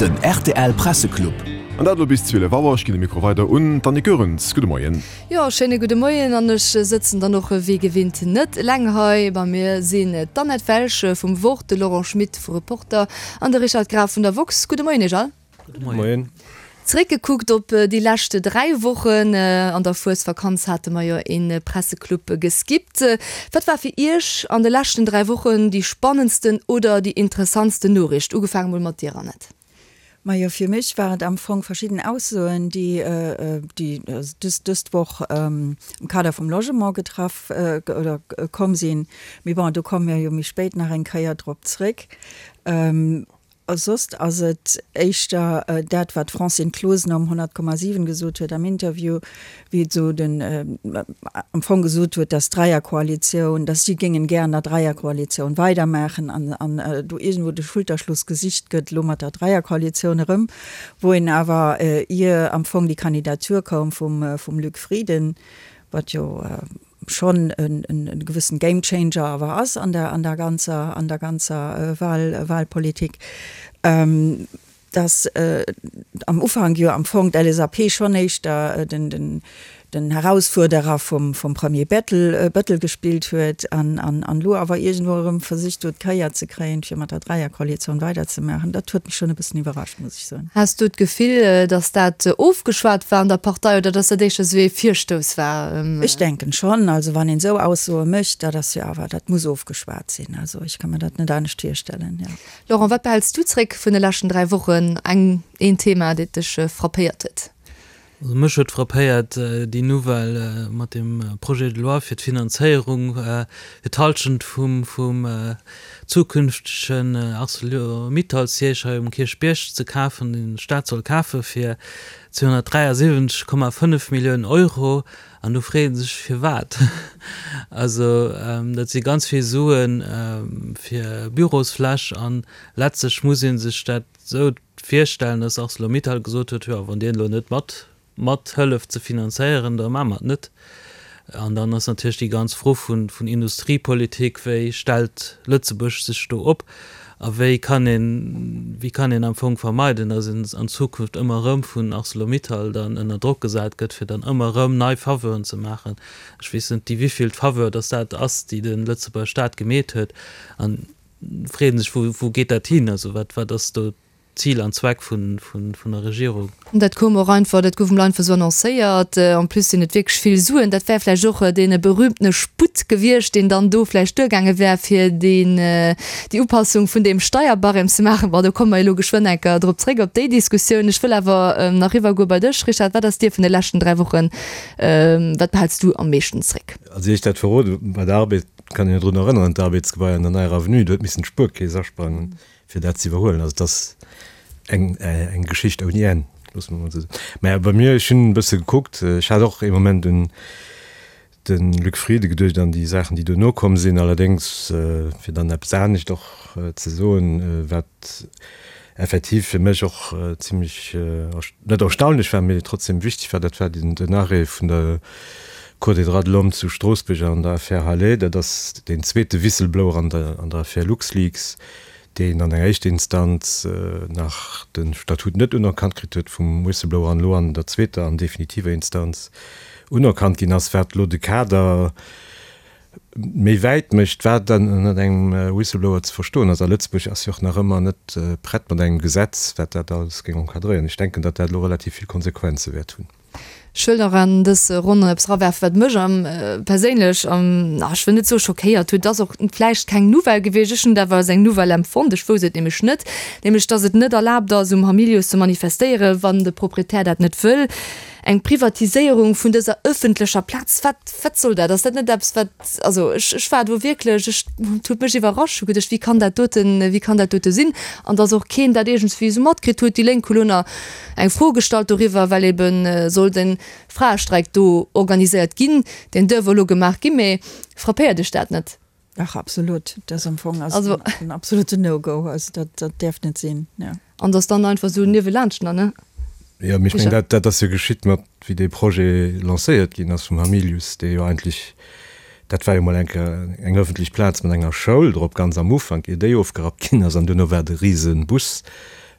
Den rtl Presseclub. An dat elo bis 12 Auer. Ech ginn de Mikro weider un d'Annick Goerens. Gudde Moien. Jo, schéine gudde Moien an ech sëtzen dann och wéi gewinnt net eleng hei. Bei mir sinn d'Annette Welsch vum Wort, de Laurent Schmit vu Reporter an de Richard Graf vun der woxx. Gudde Moien iech all. Gudde Moien. Zréckgekuckt op déi lescht 3 Wochen, an der Fuesvakanz hate mer jo ee Presseclub geskippt. Wat war fir Iech an de leschten 3 Wochen déi spannendsten oder déi interessantsten Noriicht? Ugefaange mol mat dir, Annette. Majo, fir mech war et am Fong verschidden Aussoen, déi déi dës Woch am Kader vum Logement getraff oder komm sinn. Mee bon, do komme mir jo méi spéit nach eng Kéier drop zréck. A soss ass et éischter dat, wat d'Francine Closener um 100,7 gesot huet am Interview, wéi et esou den, am Fong gesot huet, dass d'Dräierkoalitioun, dass si géingen gär an der Dräierkoalitioun weidermaachen an, an do iergendwou de Schulterschluss gesicht gëtt elo mat der Dräierkoalitioun erëm, wou een awer, ier am Fong déi Kandidatur koum vum, vum Luc Frieden, wat jo schonn e gewëssen Game Changer awer ass an der an der ganzer an der ganzer Wahl Wahlpolitik, dass am Ufank jo am Fong d'LSAP schonn éischter den den den Herausfuerderer vum vum Premier Bettel Bëttel gespillt huet an an an elo awer iergendwou erëm versicht huet d'Kéier ze kréien fir mat der Dräierkoalitioun weiderzemaachen. Dat huet mech schonn e bëssen iwwerrascht, muss ech soen. Has du d'Gefill, datt dat ofgeschwat war an der Partei oder datt dat éischter esou ee Virstouss war? Ech denken schonn. Also wann een esou Aussoe mécht, dat ass jo awer, dat muss ofgeschwat sinn. Also ech ka mer dat net anescht virstellen, jo. Laurent, wat behäls du zréck vun de leschten 3 Wochen? Eng, een Thema, dat dech frappéiert huet? Also mech huet frappéiert déi Nouvelle mat dem Projet de loi fir d'Finanzéierung fir d'Halschent vum vum zukünftegen Arcelor-Mittal-Siège hei um Kierchbierg ze kafen, deen de Staat soll kafe fir 273,5 Milliounen Euro. An do freet ee sech, firwat? Also dat si ganz vill Sue fir Bürosfläch an letztlech muss ee sech dat esou virstellen, dass Arcelor-Mittal gesot huet, jo, wann Dir elo net mat mathëlleft ze finanzéieren, da maache mer et net. An dann ass natierlech déi ganz Fro vun vun Industriepolitik, wéi stellt Lëtzebuerg sech do op a wéi kann een, wéi kann een am Fong vermeiden, dass een an Zukunft ëmmer erëm vun Arcelor-Mittal dann ënner Drock gesat gëtt, fir dann ëmmer erëm nei Faveuren ze maachen. Ech weess net, déi wivilt Faveur dass dat ass, déi de Lëtzebuerger Staat gemeet huet. An freet een sech, wou, wou geet dat hin? Also wat, wat ass do Zil an Zweck vun, vun, vun der Regierung? Dat koum och einfach, dat gouf emol einfach esou annoncéiert. En plus sinn et wierklech vill Suen. Dat wär vläicht och dee berühmtene Sputt gewiescht, deen dann do vläicht duergaange wär, fir deen, déi Upassung vun deem Steierbarème ze maachen. Bon, do komme mer elo geschwënn eng Kéier drop zréck, op déi Diskussioun. Ech wëll awer nach eriwwergoe bei dech, Richard. Wat ass dir vun de leschten 3 Wochen, wat behälls du am meeschten zréck? Also ier ech dat verroden, bei der Arbed kann een jo drun erënneren, d'Arbedsgebai an der Neier Avenue, do huet missen d'Spuerkeess asprangen, fir dat ze iwwerhuelen. Also et ass eng, eng Geschicht ouni Enn, loosse mer emol esou soen. Mä bei mir, ech hunn e bësse gekuckt, ech hat och ee Moment un de Luc Frieden geduecht an déi Saachen, déi duerno komm sinn. Allerdéngs, fir dann eppes anescht och ze soen, wat effektiv fir mech och zimlech, net erstaunlech war, mee trotzdem wichteg war, dat war den Arrêt vun der Cour des droits de l'homme zu Stroossbuerg an der Affär Halet. Dat ass deen zweete Whistleblower an der an der Affär LuxLeaks, deen an enger éischter Instanz nach de Statut net unerkannt kritt huet vum Whistleblower an elo an der zweeter an definitiver Instanz unerkannt ginn ass, wat elo de Kader méi wäit mécht, wat dann ënnert engem Whistleblower ze verstoen ass. A Lëtzebuerg ass jo och nach ëmmer net prett mat engem Gesetz, wat dat alles géing encadréieren. Ech denken, datt dat elo relativ vill Konsequenze wäert hunn. Ech wëll nach an dës Ronn eppes erawerfen, wat mech am perséinlech am, na, ech wëll net soe schockéiert huet, et ass och vläicht keng Nouvelle gewiescht, ech hunn et awer als eng Nouvelle empfonnt, ech wousst et nämlech net, nämlech dass et net erlaabt ass, um Hamilius ze manifestéieren, wann de Proprietär dat net wëll. Eng Privatiséierung vun dëser ëffentlecher Plaz, wat, wat soll dat? Ass dat net eppes, wat, also ech, ech war do wierklech, ech, et huet mech iwwerrascht, hu geduecht, wéi kann dat doten, wéi kann dat dote sinn? An dass och keen dat iergendswéi esou matkritt huet. Déi Lénk hu lo nach eng Fro gestallt doriwwer, well ebe soll de Fraestreik do organiséiert ginn. Deen duerf elo gemaach ginn, mee frappéiert Iech dat net? Dach, absolut. Dat ass am Fong ass also, en absolute No-Go. Also dat, dat däerf net sinn, jo. An dass dann einfach esou niewelaanscht nach, ne? Jo, mee ech mengen, dat, dat ass jo geschitt mat, wéi dee Projet lancéiert ginn ass vum Hamilius, dee jo eigentlech, dat war jo mol eng Kéier eng öffentlech Plaz mat enger Schoul drop, ganz am Ufank, ier déi ofgerappt ginn ass. An duerno war et e rise Bus.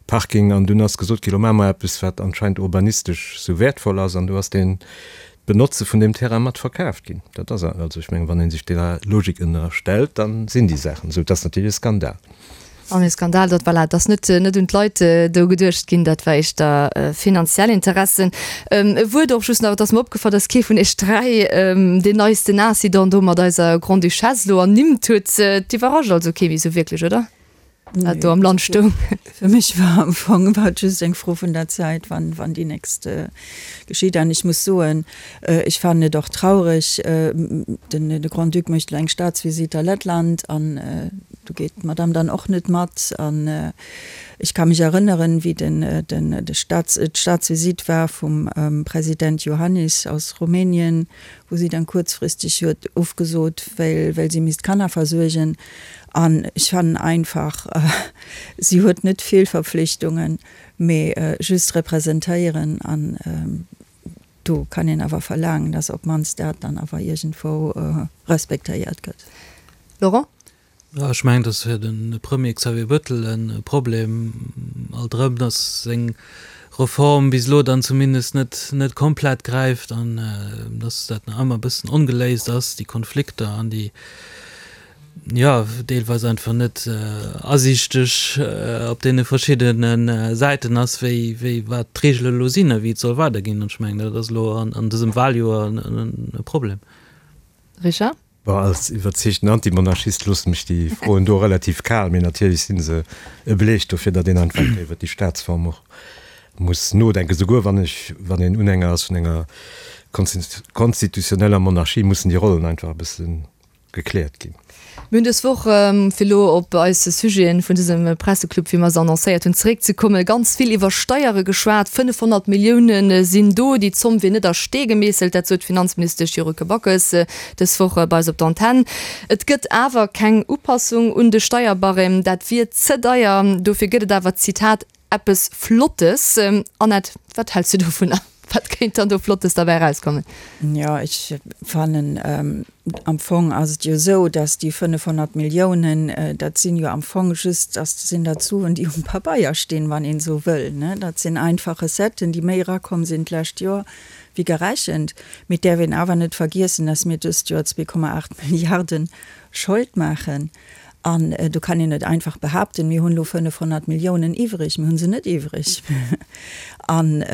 Parking an dunn ass gesot ginn, lo maache mer eppes, wat anscheinend urbanistesch sou wäertvoll ass an do ass deen d'Benotze vun deem Terrain mat verkaaft ginn. Dat ass also, ech mengen, wann ee sech deeër Logik ënnerstellt, da sinn déi Saachen esou. Et ass natierlech e Skandal. An e Skandal, datt, voilà, et ass net, net un d'Leit do geduecht ginn, dat war éischter finanziell Interessen. E Wuert och just nach, et ass mer opgefall, datt kee vun iech 3 deen neisten Incident do mat eiser Grande-Duchesse elo ernimmt huet. Et iwwerrascht also kee méi esou wierklech, oder? Wat do am Land stoung. Fir mech war am Fong war et just eng Fro vun der Zäit, wann, wann déi nächst geschitt. An ech muss soen, ech fannen et och traureg, den, de Grand-Duc mécht elo eng Staatsvisite a Lettland an do geet d'Madame dann och net mat. An ech ka mech erënneren, wéi den, den, de Staats, d'Staatsvisite war vum President Iohannis aus Rumänien, wou si dann kuerzfristeg huet ofgesot, well, well si misst d'Kanner versuergen. An ech fannen einfach, si huet net vill Verpflichtungen, mee just representéieren. An do kann een awer verlaangen, dass op d'mannst dat dann awer iergendwou respektéiert gëtt. Laurent? Jo, ech mengen, et ass fir de Premier Xavier Bettel e Problem, alt erëm, dass seng Reform bis elo dann zumindest net net komplett gräift an dass dat nach ëmmer e bëssen ongeléist ass, déi Konflikter an déi, jo, deelweis einfach net asiichteg op deene verschiddene Säiten ass, wéi, wéi, wat d'Reegele elo sinn a wéi et soll weiderginn. An ech mengen, dat ass elo an, an dësem Wahljoer e Problem. Richard? Bon, als iwwerzeegten Antimonarchist loossen mech déi Froen do relativ kal, mee natierlech si se e Beleg dofir, datt een einfach iwwer déi Staatsform och muss nodenken. Souguer wann ech, wann een Unhänger ass vun enger konstitutioneller Monarchie, mussen déi Rollen einfach e bësse gekläert ginn. Mir hunn dës Woch, fir elo op eis Sujeten vun dësem Presseclub, wéi mer se annoncéiert hunn, zeréckzekommen, ganz vill iwwer Steiere geschwat. 500 Millioune sinn do. Déi Zomm wier net a Stee gemeesselt, dat sot d'Finanzministesch Yuriko Backes dës Woch bei eis op der Antenn. Et gëtt awer keng Upassung un de Steierbarème, dat wier ze deier. Dofir gëtt et awer, Zitat, Eppes Flottes. Annette, wat häls du dovunner? Wat kéint dann do Flottes derbäi erauskommen? Jo, ech fannen, am Fong ass et jo esou, datt déi 500 Milliounen, dat sinn jo am Fong just, dat sinn dat Suen, déi um Pabeier stinn, wann een esou wëll, ne. Dat sinn einfach Recetten, déi méi erakomm sinn d'lescht Joer wéi gerechent. Mee et däerf een awer net vergiessen, datt mir dëst Joer 2,8 Milliarden Schold maachen. An do kann een net einfach behaapten, mir hunn elo 500 Milliounen iwwreg. Mir hu se net iwwreg. An,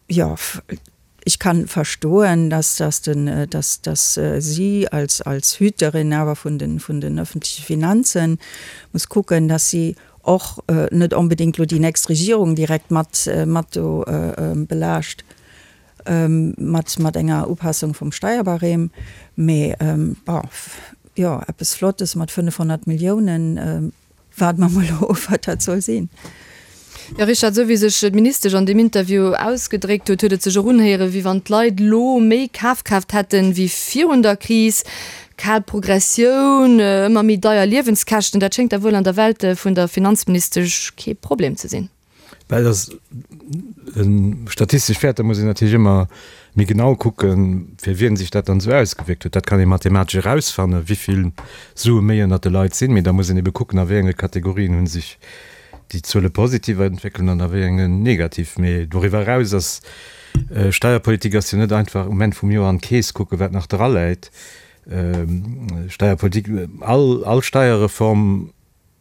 jo, ech ka verstoen, dass, dass den, dass, dass si als, als Hüterin awer vun den, vun den öffentliche Finanzen muss kucken, dass si och net onbedéngt elo déi nächst Regierung direkt mat, mat do belaascht. Mat, mat enger Upassung vum Steierbarème, mee bon, jo, eppes Flottes mat 500 Milliounen, waarde mer mol of, wat dat soll sinn. Jo, Richard, esou wéi sech d'Ministesch an deem Interview ausgedréckt huet, huet et sech och unhéieren, wéi wann d'Leit elo méi Kafkraaft hätten, wéi virun der Kris. Kal Progressioun, ëmmer méi deier Liewenskäschten, dat schéngt da wuel an der Welt vun der Finanzministesch kee Problem ze sinn. Well dass statistesch Wäerter muss een natierlech ëmmer méi genau kucken, fir wien sech dat dann esou ausgewierkt huet. Dat kann ee mathematesch erausfannen, wéi vill Sue méi ënnert de Leit sinn. Mee da muss een ebe kucken, a wéi enge Kategorien hu sech déi Zuele positiv entwéckelt an a wéi engen negativ. Mee doriwwer eraus ass Steierpolitik ass jo net einfach um Enn vum Joer an d'Keess kucken, wat nach draläit. Steierpolitik, all all Steierreform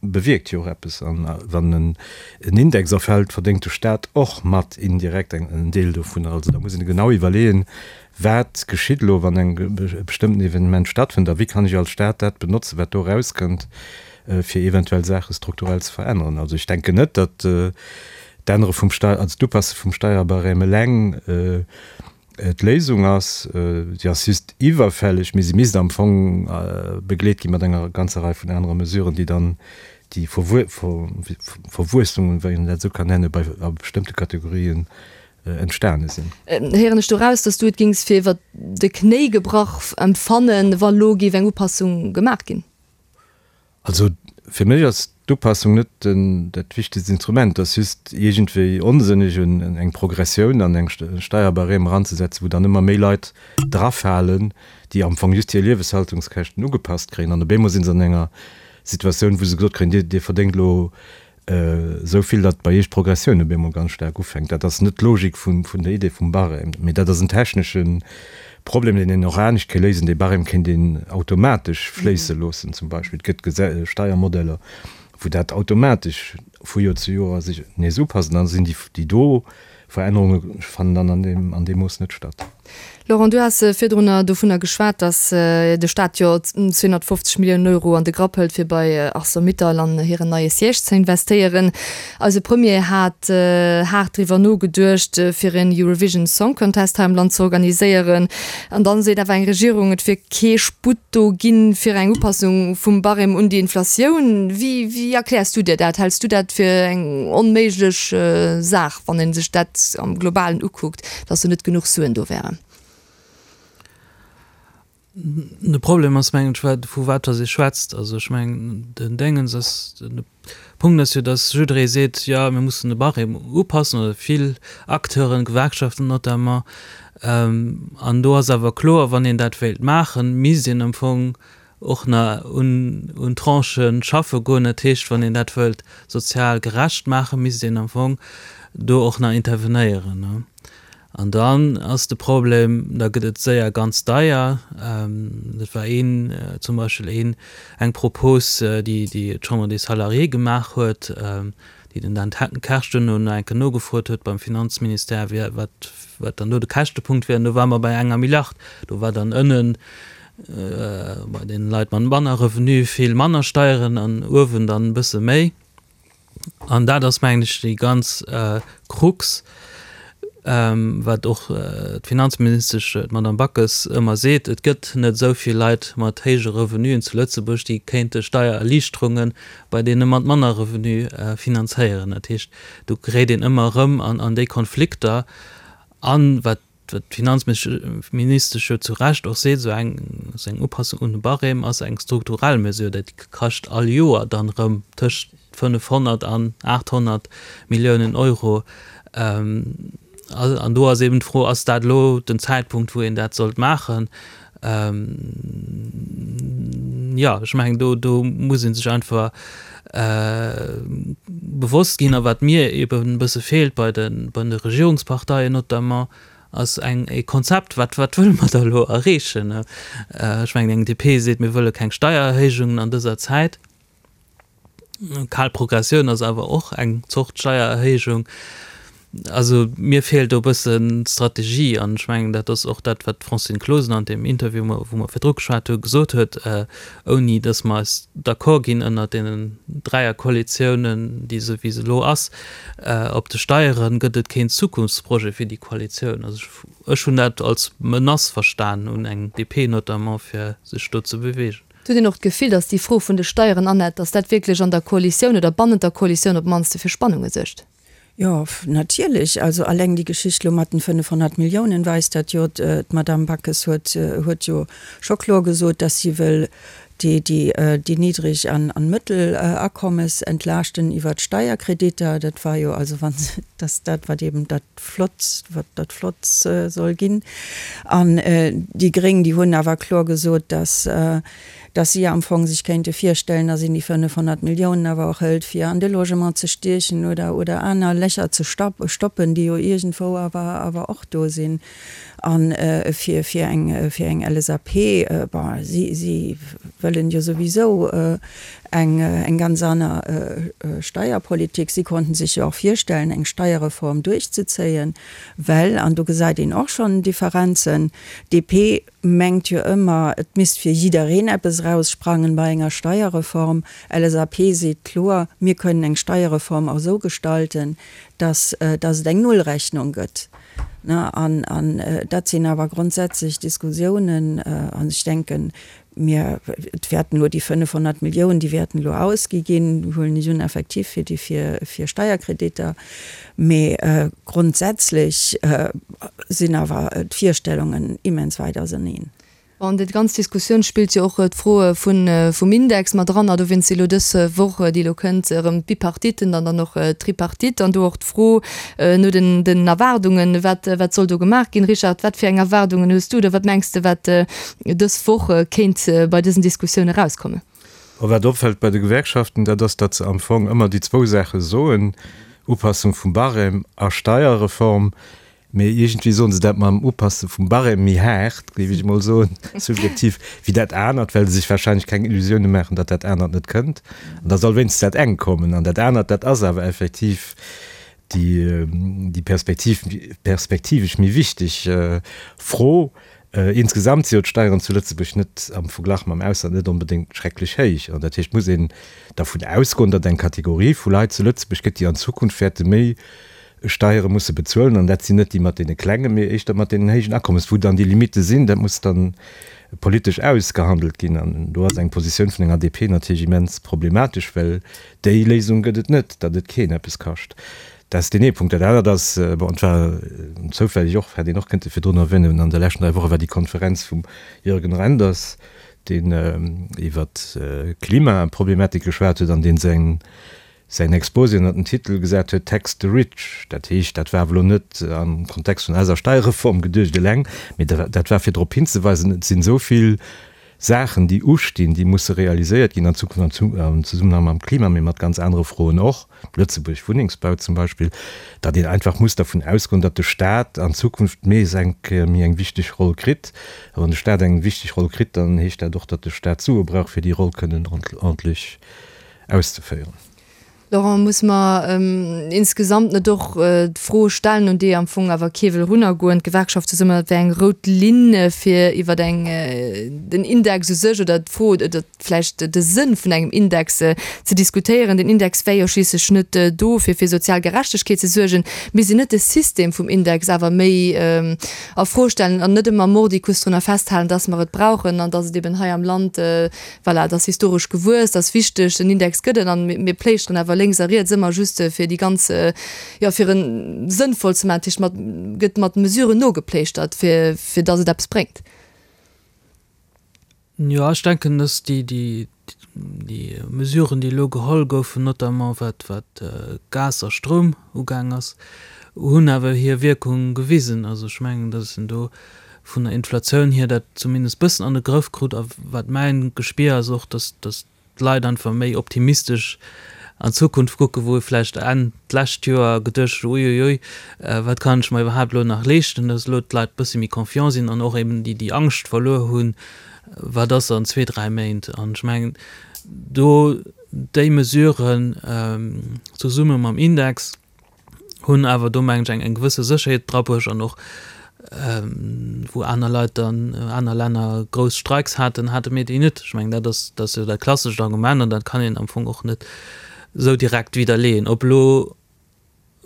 bewierkt jo och eppes. An wann en Index erfält, verdéngt de Staat och mat indirekt en Deel dovunner. Also da muss een genau iwwerleeën, wat geschitt elo, wann eng e bestëmmten Evenement stattfënnt a wéi kann ech als Staat dat benotzen, wat do erauskënnt, fir eventuell Saache strukturell ze veränneren. Also ech denken net, datt d'Ännere vum Steier, also d'Upasse vum Steierbarème eleng D'Léisung ass, si ass just iwwerfälleg, mee si misst am Fong begleet gi mat enger ganzer Rei vun anere Mesuren, déi dann déi Verwuessungen, wann een dat esou kann nennen, bei a bestëmmte Kategorien entstane sinn. Héieren ech do raus, dass du et géings fir iwwer de Knéi gebrach empfannen, wa lo géif eng Upassung gemaach ginn? Also fir mech ass d'Upassung net dat wichtegst Instrument. Et ass just iergendwéi onsënneg eng Progressioun an eng Steierbarème eranzesetzen, wou dann ëmmer méi Leit drafalen, déi am Fong just hir Lieweshaltungskäschten ugepasst kréien. An op eemol si se an enger Situatioun, wou se gesot kréien, Dir, Dir verdéngt elo. Esou vill, datt bei Iech d'Progressioun op eemol ganz staark ufänkt. Dat ass net d'Logik vun der Idee vum Barème, mee dat ass en technesche Problem, deen een och anescht kéint léisen. Dee Barème kéint een automatesch fléisse loossen zum Beispill. Et gëtt Steiermodeller, wou dat automatesch vu Joer zu Joer sech nees upasst an da sinn déi do Verännerunge fannen dann an deem an deem Mooss net statt. Laurent, du has virdrunner dovunner geschwat, datt de Staat jo 250 Milliounen Euro an de Grapp hëlt, fir bei Arcelor-Mittal an hiren neie Siège ze investéieren. Eise Premier hat haart driwwer nogeduecht, fir en Eurovision Song Contest hei am Land ze organiséieren. An dann seet awer eng Regierung, et wier kee Sputt do ginn, fir eng Upassung vum Barème un déi Inflatioun. Wéi, wéi erkläers du dir dat? Häls du dat fir eng onméiglech Saach, wann ee sech dat am Globalen ukuckt, dass do net genuch Suen do wären? De Problem ass, mengen ech, wat, vu wat dass ee schwätzt. Also ech mengen, den Déngens ass, de Punkt ass jo, dass jidderee seet, jo, mir mussen de Barème upassen, oder vill Acteuren, Gewerkschaften notamment. An do ass awer kloer, wann een dat wéilt maachen, misst een am Fong och nach un, un Tranchë schaffe goen. Dat heescht, wann een dat wëllt sozial gerecht maachen, misst een am Fong do och nach intervenéieren. An dann ass de Problem, da gëtt et séier ganz deier. Dat war een, zum Beispill een, eng Propos, déi déi d'Chambre des Salariés gemaach huet, déi den Dan Kersch duerno nach eng Kéier nogefrot huet beim Finanzministère, wéi, wat, wat dann do de Käschtepunkt wier. An do ware mer bei enger Milliard. Do war dann ënnen bei deene Leit mat manner Revenu vill manner Steieren an uewen dann e bësse méi. An dat ass, mengen ech, déi ganz Krux, wat och d'Finanzministesch, d'Madame Backes, ëmmer seet, Et gëtt net esou vill Leit mat héije Revenuen zu Lëtzebuerg, déi kéinte Steiererliichterunge bei deene mat manner Revenu finanzéieren. Dat heescht, do geréit een ëmmer erëm an déi Konflikter. An wat Wat d'Finanzministesch jo zu Recht och seet, esou eng, esou eng Upassung un de Barème ass eng strukturell Mesure, dat kascht all Joer dann erëm tëscht 500 an 800 Milliounen Euro. An do ass eben d'Fro, Ass dat elo den Zäitpunkt, wou een dat sollt maachen? Jo, ech mengen, do, do muss ee sech einfach bewosst ginn. A wat mir eben e bësse feelt bei de, bei de Regierungsparteien notamment, ass eng, e Konzept, Wat, wat wëlle mer da elo erreechen? Ech mengen, eng DP seet, mir wëlle keng Steiererhéijungen an dëser Zäit. Kal Progressioun ass awer och eng Zort Steiererhéijung. Also mir feelt do e bëssen d'Strategie an ech mengen, dat ass och dat, wat d'Francine Closener an deem Interview, wou mer virdru geschwat hu, gesot huet, ouni datt mer eis d'accord ginn ënnert deenen Dräierkoalitiounen, déi esou wéi se elo ass, op de Steieren, gëtt et keen Zukunftsprojet fir déi Koalitioun. Also ech hunn dat als Menace verstan un eng DP notamment, fir sech do ze beweegen. Et huet een och d'Gefill, datt déi Fro vun de Steieren, Annette, datt dat wierklech an der Koalitioun oder bannent der Koalitioun op d'mannste fir Spannunge suergt. Jo, natierlech. Also alleng déi Geschicht elo mat den 500 Milliounen weist dat jo. D'Madame Backes huet huet jo scho kloer gesot, datt si wëll déi déi déi niddreg an an mëttel Akommes entlaaschten iwwert d'Steierkreditter. Dat war jo also wann se, datt dat wat eben dat flott, wat dat flott soll ginn. An déi Gréng, déi hunn awer kloer gesot, dass, dass si am Fong sech kéinte virstellen, dass een déi 500 Milliounen awer och hëlt, fir an de Logement ze stiechen oder, oder aner Lächer ze stoppen, déi jo iergendwou awer, awer och do sinn. A fir, fir eng, fir eng LSAP, bon, si, si wëllen jo souwisou eng, eng ganz aner Steierpolitik. Si konnten sech jo och virstellen, eng Steierreform duerchzezéien, well, an do gesäit een och schonn Differenzen, DP mengt jo ëmmer, et misst fir jiddereen eppes eraussprangen bei enger Steierreform. LSAP seet kloer, mir kënnen eng Steierreform och esou gestalten, dass, dass et eng Nullrechnung gëtt. An, an dat sinn awer grondsätzlech Diskussiounen. An ech denken, mir, et wäerten elo déi 500 Milliounen, déi wäerten elo ausgi ginn, huelen ech un, effektiv fir déi, fir, fir Steierkreditter. Mee grondsätzlech sinn awer d'Virstellungen immens wäit auseneen. An déi ganz Diskussioun spillt jo och d'Fro vum Index mat eran. A dowéinst si elo dës Woch, déi elo kënnt, erëm d'Bipartiten an dann och d'Tripartite. An do och d'Fro no den Erwaardungen, wat, wat soll do gemaach ginn? Richard, wat fir eng Erwaardungen hues du oder wat mengs de, wat dës Woch kéint bei dësen Diskussioune erauskommen? A wat opfält bei de Gewerkschaften, dat ass, datt se am Fong ëmmer déi zwou Saache soen, Upassung vum Barème a Steierreform. Mee iergendwéi soen se dat mam Upasse vum Barème méi haart, géif ech emol soen, subjektiv, wéi dat anert, well se sech warscheinlech keng Illusioune maachen, datt dat anert net kënnt. An da soll wéinstens dat engt kommen. An dat anert, dat ass awer effektiv déi, déi perspektiv, perspektivesch méi wichteg Fro. Insgesamt si jo d'Steieren zu Lëtzebuerg net am Verglach mam Ausland net onbedéngt schrecklech héich. An dat heescht, et muss een dervun ausgoen, datt eng Kategorie vu Leit zu Lëtzebuerg gëtt, déi an Zukunft wäerte méi Steiere musse bezuelen, an dat sinn net déi mat deene klengen, mee éischter mat deenen héijen Akommes. Wou dann déi Limitte sinn, dat muss dann politesch ausgehandelt ginn. An do ass eng Positioun vun enger DP natierlech immens problematesch, well déi Léisung gëtt et net, datt et keen eppes kascht. Dat ass deen ee Punkt. Dat anert ass, bon, et war zoufälleg och, hätt een och kënnte virdrun erwänen, an de leschten 3 Woche war déi Konferenz vum Jürgen Reynders, deen iwwert d'Klimaproblematik geschwat huet an dee säin säin Exposé ënner den Titel gesat huet Tax the rich. Dat heescht, dat war awer elo net am Kontext vun eiser Steierreform geduecht eleng, mee dat war fir drop hinzeweisen, et sinn esou vill Saachen, déi ustinn, déi musse realiséiert ginn an Zukunft am Zesummenhang mam Klima, mee mat ganz anere Froen och, Lëtzebuerg, Wunnengsbau zum Beispill, datt een einfach muss dervun ausgoen, datt de Stat an Zukunft nees eng Kéier méi eng wichteg Roll kritt. A wann de Stat eng wichteg Roll kritt, dann heescht dat och, datt de Stat Sue brauch, fir déi Roll kënnen ordentlech auszeféieren. Laurent, muss mer insgesamt net och d'Fro stellen, un déi am Fong awer kee wëll erunnergoen, d'Gewerkschaft zesummen, dat wär eng rout Linn fir iwwer eng, den Index u sech oder d'Fro oder vläicht de Sënn vun engem Index ze diskutéieren. Den Index wär jo schliisslech net do fir fir sozial Gerechtegkeet ze suergen. Misst een net de System vum Index awer méi a Fro stellen an net ëmmer mordicus drunner festhalen, dass mer et brauchen an dass et eben hei am Land Voilà, et ass historesch gewuess, et ass wichteg, den Index gëtt et an mir pléischteren awer lénks a riets ëmmer just fir déi ganz, jo fir en sënnvoll ze maachen. Dat heescht, mat gëtt mat Mesuren nogepléischtert, fir fir datt et eppes bréngt. Jo, ech denken, datt déi déi déi Mesuren, déi elo geholl goufen, notamment wat wat Gas a Stroum ugaang ass, hunn awer hir Wierkung gewisen. Also ech mengen, datt en do vun der Inflatioun hier dat zumindest bëssen an de Grëff krut a wat mäin Gespier ass och, dass dass d'Leit einfach méi optimistesch an d'Zukunft kucken, wou ee vläicht Enn d'lescht Joer geduecht huet, uiuiui, wat kann ech mer iwwerhaapt elo nach leeschten, dass elo d'Leit bësse méi confiant sinn an och eben déi déi Angscht verluer hunn, wat ass an zwee, dräi Méint. An ech mengen do déi Mesuren zesumme mam Index, hunn awer do mengen ech eng eng gewësse Sécherheet drabruecht an och wou aner Leit dann, aner Länner grouss Streiks haten, hate mir déi net. Ech mengen dat ass dat ass jo dat klassescht Argument an dat kann een am Fong och net esou direkt widderleeën. Ob elo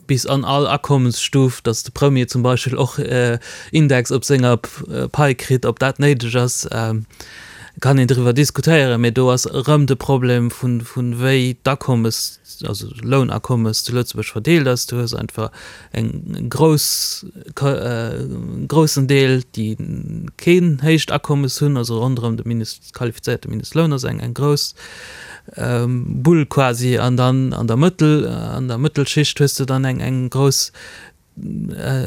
bis an all Akommensstuf, datt de Premier zum Beispill och Index op senger Pai kritt, ob dat néideg ass, kann een driwwer diskutéieren, mee do ass erëm de Problem vun vun wéi d'Akommes also Lounakommes zu Lëtzebuerg verdeelt ass. Du hues einfach eng grouss, groussen Deel, déi keen héicht Akommes hunn, also ronderëm de Mindest, qualifizéierte Mindestloun ass eng eng grouss Bull quasi an dann an der Mëttel, an der Mëttelschicht hues de dann eng eng grouss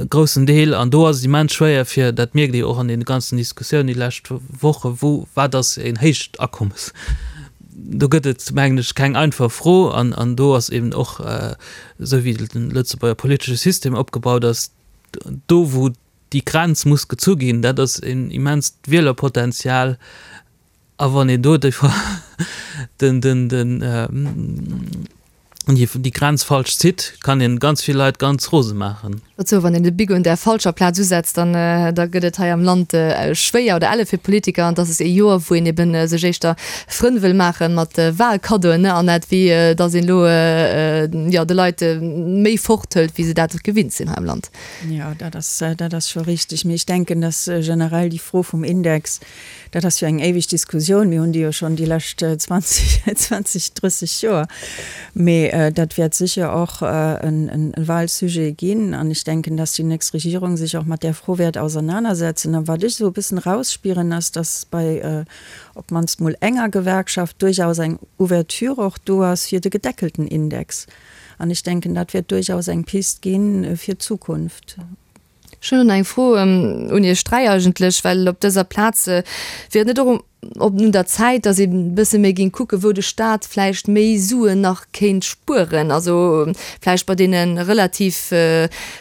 groussen Deel, an do ass et immens schwéier fir, dat mierkt ee jo och an deene ganzen Diskussiounen déi lescht Woche, wou, wat ass een héicht Akommes? Do gëtt et, mengen ech, keng einfach Fro an, an do ass eben och, esou wéi de Lëtzebuerger politesche System opgebaut ass, do wou déi Grenz muss gezu ginn, dat ass en immenst Wielerpotenzial, A wann een do den, den, den, déi Grenz falsch zitt, kann een ganz vill Leit ganz rose maachen. Dozou, wann een de Bic un där falscher Plaz usetzt, dann da gëtt et hei am Land schwéier oder elle fir d'Politiker. An dass ass ee Joer, wou een eben sech éischter Frënn wëll maache mat Wahlkaddoen, an net wéi dass een elo, jo, de Leit méi forthëlt, wéi se dat gewinnt sinn hei am Land. Jo, dat ass, dat ass scho richtig. Mee ech denken, dass generell déi Fro vum Index, Dat ass jo eng éiweg Diskussioun. Mir hunn déi jo schonn déi lescht 20, 20, 30 Joer. Mee dat wäert sécher och e Wahlsujet ginn. An ech denken, dass déi nächst Regierung sech och mat där Fro wäert ausernanersetzen. A wat ech esou e bëssen erausspieren, ass, dass bei op d'mannst mol enger Gewerkschaft duerchaus eng Ouverture och do ass fir de gedeckelten Index. An ech denken, dat wäert duerchaus eng Pist gi fir d'Zukunft. Ech hunn elo nach eng Fro un Iech 3 eigentlech, well op dëser Plaz wier et net och. op un der Zäit, datt ee bësse méi géing kucken, wou de Staat vläicht méi Suen nach kéint spueren? Also vläicht bei deene relativ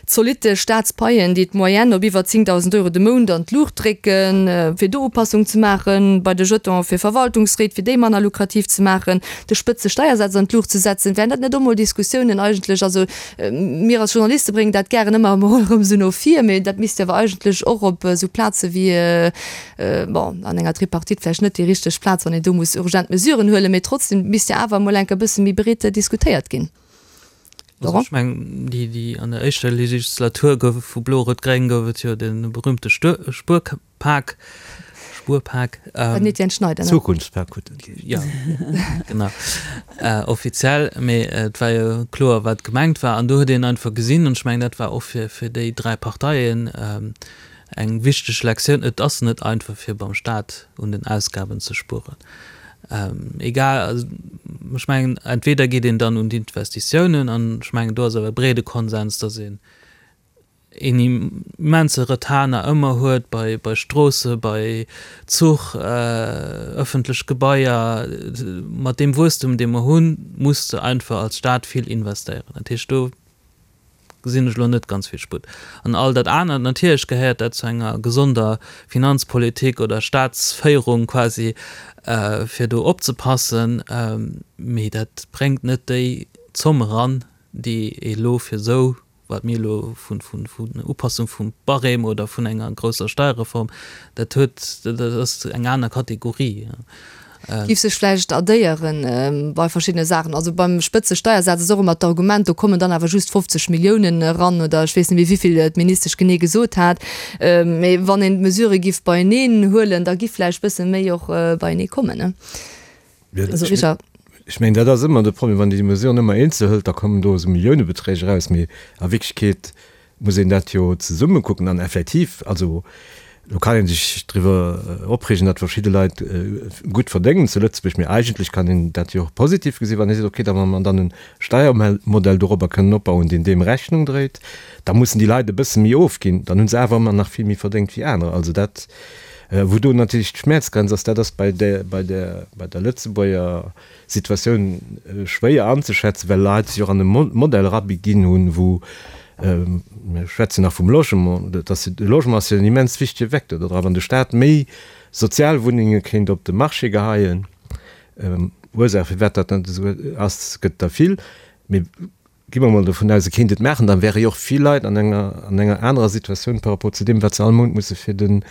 zolitte Staatspaien, déi d'Moyenne op iwwer 10.000 Euro de Mount an d'Luucht drécken, fir do Upassung ze maachen, bei de Jetone fir Verwaltungsréit, fir déi manner lukrativ ze maachen, de Spëtzesteiersaz an d'Luucht ze setzen. Wären dat net och mol Diskussiounen eigentlech? Also mir als Journaliste bréngen dat gären ëmmer emol erëm esou no vir, mee dat misst jo awer eigentlech och op esou Plaze wéi, bon, an enger Tripartite vläicht net déi richteg Plaz, wann een do muss urgent Mesuren huelen, mee trotzdem misst jo awer emol enker e bësse méi breet diskutéiert ginn. Also ech mengen, déi, déi an der éischter Legislatur gouf vu Blo-Rot-Gréng gouf et jo de berühmte Spuerpak, Spuerpak. Den Etienne Schneider, ne? Zukunftspak huet en geheescht. Jo, genau, offiziell. Mee et war jo kloer, wat gemengt war. An do huet een einfach gesinn, an ech mengen, dat war och fir, fir déi dräi Parteien eng wichteg Lektioun, Et ass net einfach, fir beim Staat un den Ausgaben ze spueren. Egal, also ech mengen, entweder geet een dann un d'Investitiounen, an ech mengen, do ass awer e breede Konsens, datt een een immense Retard nach ëmmer huet bei, bei Stroosse, bei Zuch, ëffentlech Gebaier. Mat deem Wuesstum, dee mer hunn, muss de einfach als Staat vill investéieren. Dat heescht, do gesinn ech elo net ganz vill Sputt. An all dat anert, natierlech gehéiert dat zu enger gesonder Finanzpolitik oder Staatsféierung quasi, fir do opzepassen, mee dat bréngt net déi Zomm eran, déi ee elo fir esou, wat mir elo vun Upassung vum Barème oder vun enger grousser Steierreform, dat huet, dat ass eng aner Kategorie. Giff sech vläicht addéieren bei verschiddene Saachen. Also beim Spëtzesteiersaz ass och ëmmer d'Argument, do kommen dann awer just 50 Milliounen eran oder ech weess net méi wéivill d'Ministesch genee gesot hat. Mee wann een d'Mesurë giff beieneen huelen, da giff vläicht bësse méi och beienee kommen, ne? Also Richard. Ech mengen, dat ass ëmmer de Problem, wann een déi Mesuren ëmmer eenzel hëlt, da kommen do esou Milliounebeträg eraus, mee a Wierklechkeet muss een dat jo zesumme kucken an effektiv, also lo kann ee sech driwwer opreegen, datt verschidde Leit gutt verdéngen zu Lëtzebuerg, mee eigentlech kann een dat jo och positiv gesinn, wann ee seet, okay, da wa mer dann e Steiermodell dorobber kënnen opbauen, deen deem Rechnung dréit, da mussen déi Leit e bësse méi ofginn, dann hu se awer ëmmer nach vill méi verdéngt wéi anerer. Also dat, wou do natierlech d'Schmäerzgrenz ass, dat ass bei der, bei der, bei der Lëtzebuerger Situatioun schwéier anzeschätzen, well Leit sech och an e Modell erabeginn hunn, wou, mir schwätzen nach vum Logement, dat ass, de Logement ass jo en immens wichtege Vecteur do dra, wann de Staat méi Sozialwunnenge kéint op de Marché geheien, Ursaach firwat dat net esou ass, gëtt der vill, mee Gi mer mol dovun aus, e kéint et maachen, da wäre jo och vill Leit an enger, an enger anerer Situatioun par rapport zu deem, wat se all Mount musse fir de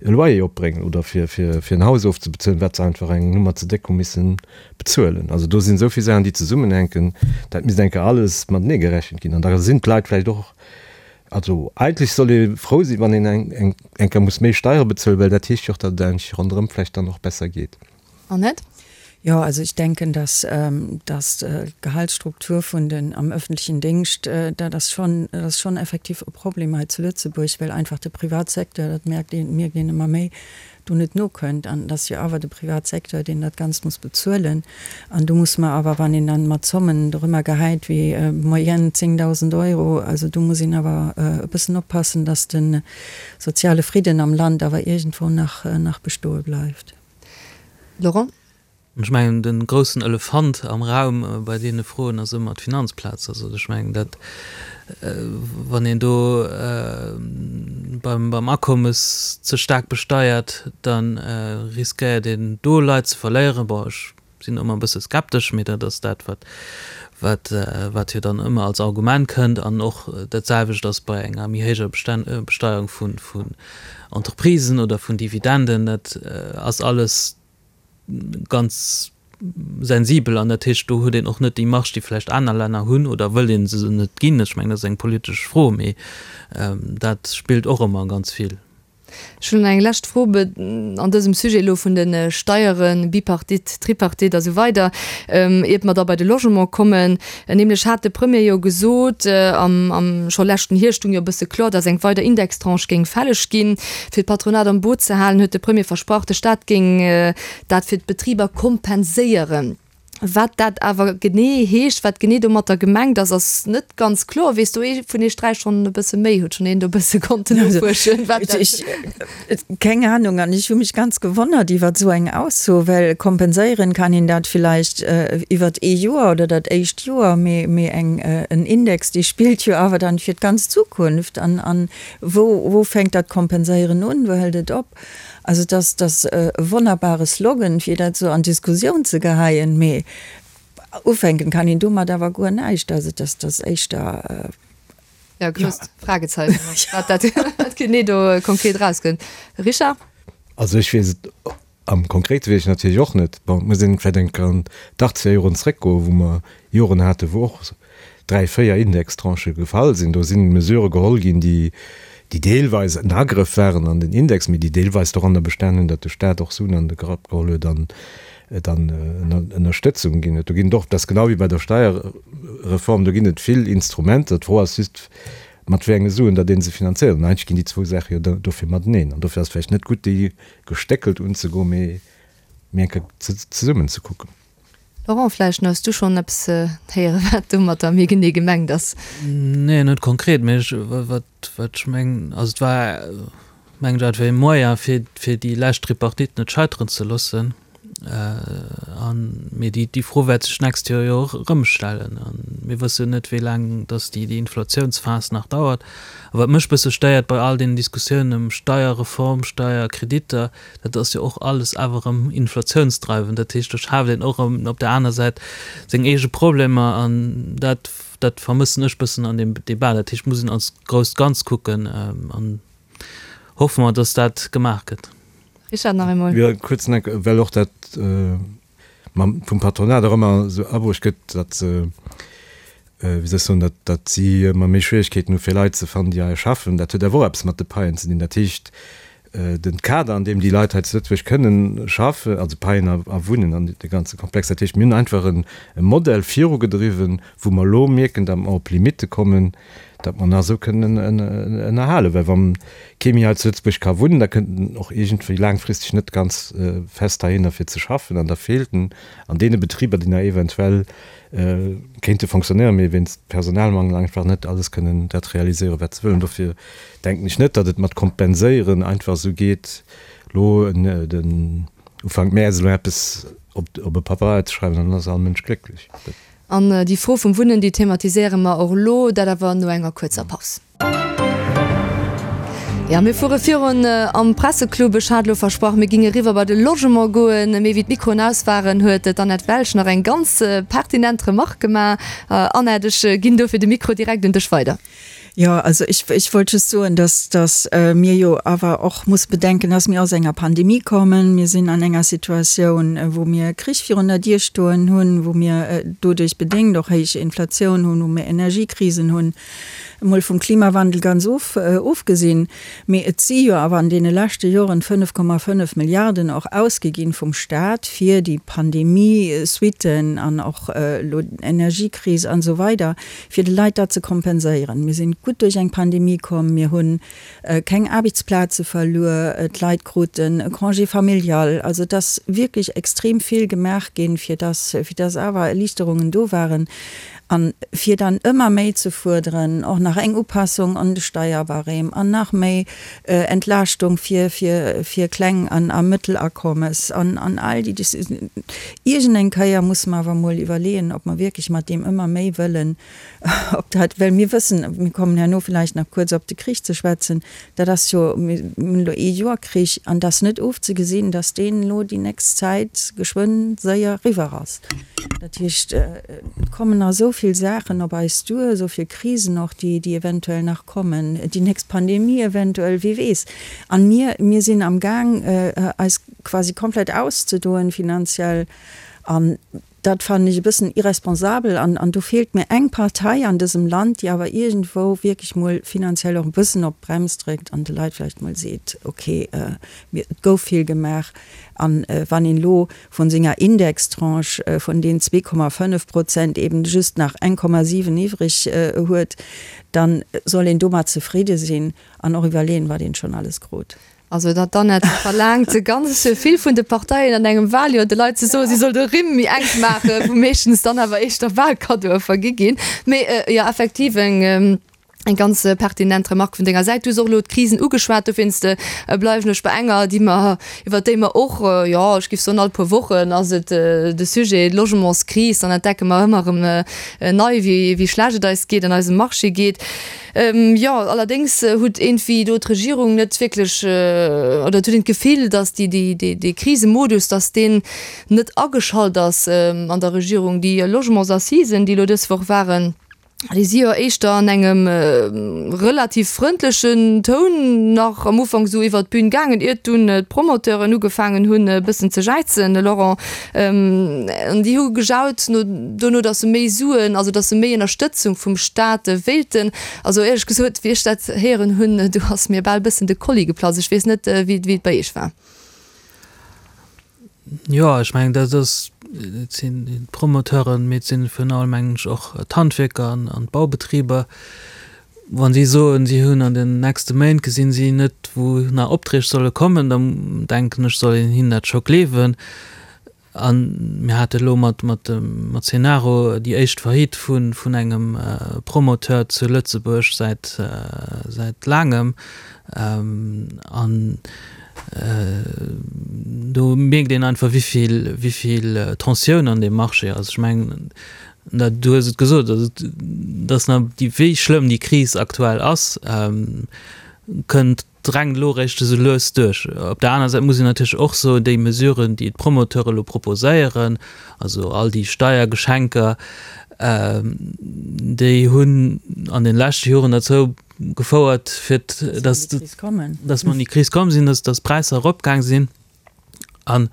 Loyer opbréngen oder fir, fir, fir en Haus ofzebezuelen, wat se einfach eng Nummer ze déck hu misse bezuelen. Also do sinn esou vill Saachen, déi zesummenhänken, dat misst eng Kéier alles matenee gerechent ginn. An da sinn d'Leit vläicht och, also eigentlech soll ee frou sinn, wann een eng, eng, eng Kéier muss méi Steiere bezuelen, well dat heescht jo och, datt et eigentlech ronderëm vläicht dann och besser geet. Annette? Jo, also ich denken, dass, dass d'Gehaltsstruktur vun den am öffentlichen Dingscht, dat ass schon, dat ass schon effektiv e Problem hei zu Lëtzebuerg, well einfach de Privatsecteur, dat merkt een, mierkt een ëmmer méi, do net nokënnt. An et ass jo awer de Privatsecteur, deen dat Ganzt muss bezuelen. An do muss mer awer, wann een dann mat Zommen dorëmmer gehäit wéi Moyenne 10.000 Euro, also do muss een awer e bëssen oppassen, dass de soziale Fridden am Land awer iergendwou nach, nach bestoe bleift. Laurent? Ech mengen, de groussen Elefant am Raum bei deene Froen ass ëmmer d'Finanzplaz. Also ech mengen, dat, wann een do beim, beim Akommes ze staark besteiert, da riskéiert een do Leit ze verléieren. Bon, ech sinn ëmmer e bësse skeptesch, mee dat ass dat, wat, wat, wat jo dann ëmmer als Argument kënnt. An och dat selwecht ass bei enger méi héijer Besteierung vun, vun Entreprisen oder vun Dividenden. Dat ass alles ganz sensibel an dat heescht, do huet een och net déi Marge, déi vläicht aner Länner hunn, oder wëll ee se net ginn. Ech mengen, dat ass eng politesch Fro, mee dat spillt och ëmmer ganz vill. Ech hunn eng lescht Fro an dësem Sujet elo vun de Steieren, Bipartite, Tripartite a sou weider, iert mer da bei de Logement kommen. Nämlech hat de Premier jo gesot, am, am scho leschten Hierscht stung jo e bësse kloer, datt eng weider Indextranche géing fälleg ginn. Fir d'Patronat am Boot ze halen, huet de Premier versprach, de Staat géing dat fir d'Betriber kompenséieren. Wat dat awer genee heescht, wat genee domatter gemengt ass, ass net ganz kloer. Weess do ee vun iech 3 schonn e bësse méi? Huet schonn een do e bësse konnten nofuerschen, wat dat. Ech, keng Ahnung. An ech hu mech ganz gewonnert iwwert esou eng Ausso, well kompenséieren kann een dat villäicht iwwert ee Joer oder dat éischt Joer, mee, mee eng, en Index, dee spillt jo awer dann fir d'ganz Zukunft. An, an wou, wou fänkt dat Kompenséieren un, wou hält et op? Also et ass, et ass e wonnerbare Slogan, fir dat esou an d'Diskussioun ze geheien, mee ufänken kann een domat awer guer näischt. Also et ass, et ass éischter. Jo, grousst Fragezeichen, wat dat genee do konkret erauskënnt. Richard? Also ech weess et am Konkrete weess ech natierlech och net. Bon, et muss een vläicht eng Kéier an d'Achtzeger Joren zréckgoen, wou mer Joren haten, wou och 3, 4 Indextranchë gefall sinn. Do si Mesurë geholl ginn, déi déi deelweis en Agrëff waren an den Index, mee déi deelweis doranner bestan hunn, datt de Staat och Suen an de Grapp geholl huet an dann Ënnerstëtzung ginn huet. Do ginn et och, dat ass genau wéi bei der Steierreform, do ginn et vill Instrumenter. D'Fro ass just, mat wéi enge Suen datt ee se finanzéiert. An eigentlech ginn déi zwou Saache jo dofir mateneen. An dofir ass et vläicht net gutt, déi gestéckelt unzegoen, mee eng Kéier zesummen ze kucken. Laurent, vläicht hues du schonn eppes héieren, wat domatter méi genee gemengt ass? Nee, net konkret, mee ech, wat, wat ech mengen, also et war, mengen ech, einfach ee Moyen, fir, fir déi lescht Tripartite net scheiteren ze loossen. An, mee déi, déi Fro wäert sech d'nächst Joer jo och erëm stellen. A mir wëssen net, wéi laang dass déi, déi Inflatiounsphas nach dauert. A wat mech e bësse stéiert bei all deenen Diskussiounen ëm Steierreform, Steierkreditter, Dat ass jo och alles awer erëm inflatiounsdreiwend. Dat heescht, do schaaft een och erëm op der aner Säit seng eege Problemer an dat, dat vermëssen ech bëssen an deem Debat. Dat heescht, et muss een als grousst Ganz kucken an hoffe mer, dass dat gemaach gëtt. Richard, nach eemol. Jo, kuerz nach, well och dat mam vum Patronat och ëmmer esou abruecht gëtt, datt se, wéi soll ech soen, datt, datt si ëmmer méi Schwierigkeeten hu fir Leit ze fannen, déi hei schaffen. Dat huet awer och eppes mat de Paien ze dinn. Dat heescht, den Kader, an deem déi Leit hei zu Lëtzebuerg kënnen schaffen, also Paien a Wunnen an de ganze Komplex, dat heescht, mir hunn einfach e Modell virugedriwwen, wou mer elo mierken, datt mer op Limitte kommen, datt mer nach esou kënnen ënnerhalen. Well wa kee méi hei zu Lëtzebuerg ka wunnen, da kënnt en och iergendwéi laangfristeg net ganz fest heihinner fir ze schaffen an da feelt en an deene Betriber, déi nach eventuell kéinte fonctionnéieren, mee wéinst Personalmangel einfach net alles kënnen dat realiséieren, wat se wëllen. Dofir denken ech net, datt et mat kompenséieren einfach esou geet, elo den Ufank Mäerz elo eppes op e Pabeier ze schreiwen an dann ass all Mënsch glécklech. An déi Fro vum Wunnen, déi thematiséiere mer och elo, dat awer no enger kuerzer Paus. Jo, mir fuere virun am Presseclub. Ech hat elo versprach, mir ginge eriwwer bei de Logement goen. Mee wéi d'Mikroen aus waren, huet d'Annette Welsch nach eng ganz pertinent Remarque gemaach. Annette, ech ginn dofir de Mikro direkt un dech weider. Jo, also ech, ech wollt just soen, dass, dass mir jo awer och musse bedenken, dass mir aus enger Pandemie kommen. Mir sinn an enger Situatioun, wou mir Krich virun der Dier stoen hunn, wou mir doduerch bedéngt och héich Inflatioun hunn, wou mir Energiekrisen hunn, emol vum Klimawandel ganz of, ofgesinn. Mee et si jo awer an deene leschte Joren 5,5 Milliarden och ausgi ginn vum Stat fir déi Pandemie-Suitten an och elo d'Energiekris an esou weider. fir de Leit dat ze kompenséieren. Mir sinn gutt duerch eng Pandemie komm, mir hu keng Aarbechtsplaze verluer, d'Leit kruten e Congé familial. Also et ass wierklech extrem vill gemaach ginn, fir dass, fir dass awer Erliichterungen do waren. A fir dann ëmmer méi ze fuerderen, och nach eng Upassung an de Steierbarème an nach méi Entlaaschtung fir, fir, fir Kleng an a Mëttelakommes an, an all déi Dis-. Iergendeng Kéier musse mer awer emol iwwerleeën, ob mer wierklech mat deem ëmmer méi wëllen, ob dat, well mir wëssen, mir kommen herno villäicht nach kuerz op de Krich ze schwätzen, dat ass jo, mir hunn elo ee Joer Krich an et ass net ofzegesinn, datt deen elo déi nächst Zäit geschwënn séier eriwwer ass. Dat heescht, et kommen nach esou vill Saachen op eis duer, esou vill Krisen och, déi, déi eventuell nach kommen, déi nächst Pandemie eventuell, wie weess. An mir, mir sinn amgaang eis quasi komplett auszedoen finanziell an dat fannen ech e bëssen irresponsabel an an do feelt mir eng Partei an dësem Land, déi awer iergendwou wierklech mol finanziell och e bëssen op d'Brems dréckt an de Leit vläicht mol seet, okay, mir, et gouf vill gemaach an wann een elo vun senger Indextranche vun den 2,5 Prozent eben just nach 1,7 iwwreg huet, dann soll een domat zefridde sinn an och iwwerleeën, wat een schonn alles krut. Also dat d'Annette verlaangt ganz vill vun de Parteien an engem Wahljoer, de Leit ze soen, si soll de Rimm méi enk maachen, wou meeschtens dann awer éischter Wahlkaddoe vergi ginn. Mee jo, effektiv eng eng ganz pertinent Remarque vun denger Säit. Du hues och elo d'Krisen ugeschwat, dowéinst bleiwen ech bei enger, déi mer, iwwert déi mer och, jo, ech géif soen, all puer Wochen ass et de Sujet, d'Logementskris. Dann entdecke mer ëmmer erëm nei, wéi wéi schlecht et eis geet, an eisem Marché geet. Jo, allerdéngs huet iergendwéi do d'Regierung net wierklech, oder et huet een d'Gefill, datt déi, déi, dee, dee Krisemodus, datt deen net ageschalt ass an der Regierung. Déi Logementsassisen, déi elo dës Woch waren, déi si jo éischter an engem relativ frëndlechen Toun nach am Ufank esou iwwert d'Bün gaangen, iert dunn d'Promoteuren ugefaangen hunn e bëssen ze jäizen, Laurent. An déi hu gejaut no dono, datt se méi Suen, also datt se méi Ënnerstëtzung vum Staat wéilten. Also éierlech gesot, wéi ech dat héieren hunn, do ass mir bal bëssen de Kolli geplatzt. Ech weess net, wéi et bei Iech war. Jo, ech mengen, dat ass, et sinn d'Promoteuren, mee et sinn virun allem, mengen ech, och d'Handwierker an d'Baubetriber. Wa si soen, si hunn an den nächste Méint gesinn si net, wou nach Opträg solle kommen, da denken ech, soll een hinnen dat scho gleewen. A mir hate elo mat mat Cenaro déi éischt Faillite vun engem Promoteur zu Lëtzebuerg säit säit laangem. An do mierkt een einfach, wéi vill Tensioun an deem Marché ass. Ech mengen, Du hues et gesot, also dass nach déi, wéi schlëmm déi Kris aktuell ass, kënnt, drängt elo eréischt esou lues duerch. Op der aner Säit muss een natierlech och soen, déi Mesuren, déi d'Promoteure elo proposéieren, also all déi Steiergeschenker, déi hunn an de leschte Joren derzou gefouert, fir dass, dass mer an déi Kris komm sinn, dass, dass d'Präisser eropgaang sinn. An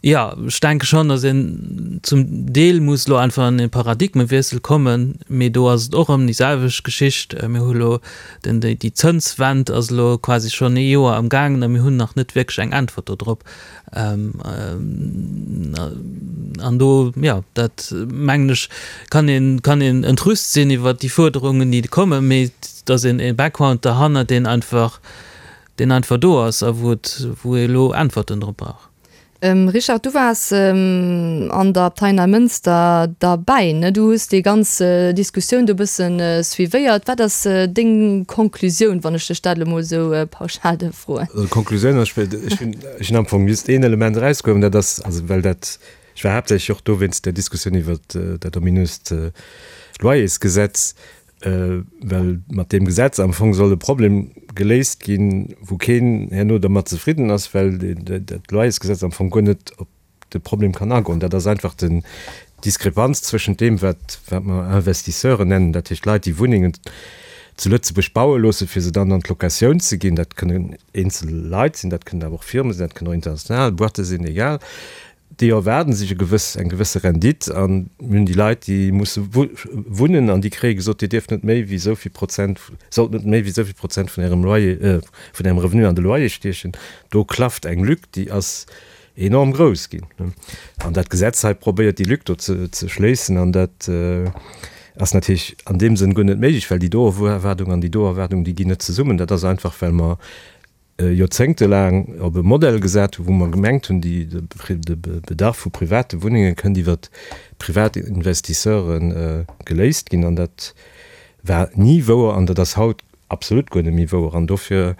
jo, ech denke schonn, datt een zum Deel muss elo einfach an e Paradigmewiessel kommen, mee do ass et och erëm déi selwecht Geschicht. Mir hu elo den, déi Zënswend ass elo quasi schonn ee Joer am gaangen a mir hunn nach net wierklech eng Äntwert do drop. An do, jo, dat mengen ech, kann een, kann een entrüst sinn iwwert déi Fuerderungen, déi kommen, mee et ass een e Background derhannert, deen einfach, deen einfach do ass a wou et, wou ee elo Äntwerten drop brauch. Richard, du waars an der Abtei Neimënster derbäi, ne? Du hues déi ganz Diskussioun do e bësse suivéiert. Wat ass deng Konklusioun, wann ech dech dat elo mol esou pauschal dierf froen? Also d'Konklusioun ass, ech hunn, ech hunn am Fong just een Element erausgeholl, an dat ass, also well dat, ech war haaptsächlech och do wéinst der Diskussioun iwwert dat ominöst Loyersgesetz, Well mat deem Gesetz am Fong soll e Problem geléist ginn, wou keen herno dermat zefridden ass, well dat Loyersgesetz am Fong guer net op de Problem kann agoen. Dat ass einfach den d'Diskrepanz zwëschent deem, wat wat mer Investisseuren nennen, dat heescht Leit, déi Wunnengen zu Lëtzebuerg baue loossen, fir se dann an d'Locatioun ze ginn. Dat kënnen eenzel Leit sinn, dat kënnen awer och Firme sinn, dat kënnen och international Boîte sinn, egal. Déi erwaarden sech e gewëss, eng gewësse Rendite an mir hunn déi Leit, déi musse wunnen an déi kréie gesot, Dir dierft net méi wéi esou vill Prozent, sollt net méi wéi esou vill Prozent vun Ärem Loyer, vun Ärem Revenu an de Loyer stiechen. Do klafft eng Lück, déi ass enorm grouss ginn. An dat Gesetz hei probéiert déi Lück do ze schléissen an dat ass natierlech an deem Sënn guer net méiglech, well déi do Erwaardung an déi do Erwaardung, déi ginn net zesummen. Dat ass einfach, well mer joerzéngtelaang op e Modell gesat hunn, wou mer gemengt hunn, déi, de Bedarf vu private Wunnenge kënnt iwwert privat Investisseure geléist ginn. An dat war ni wouer an dat ass haut absolut guer net méi wouer. An dofir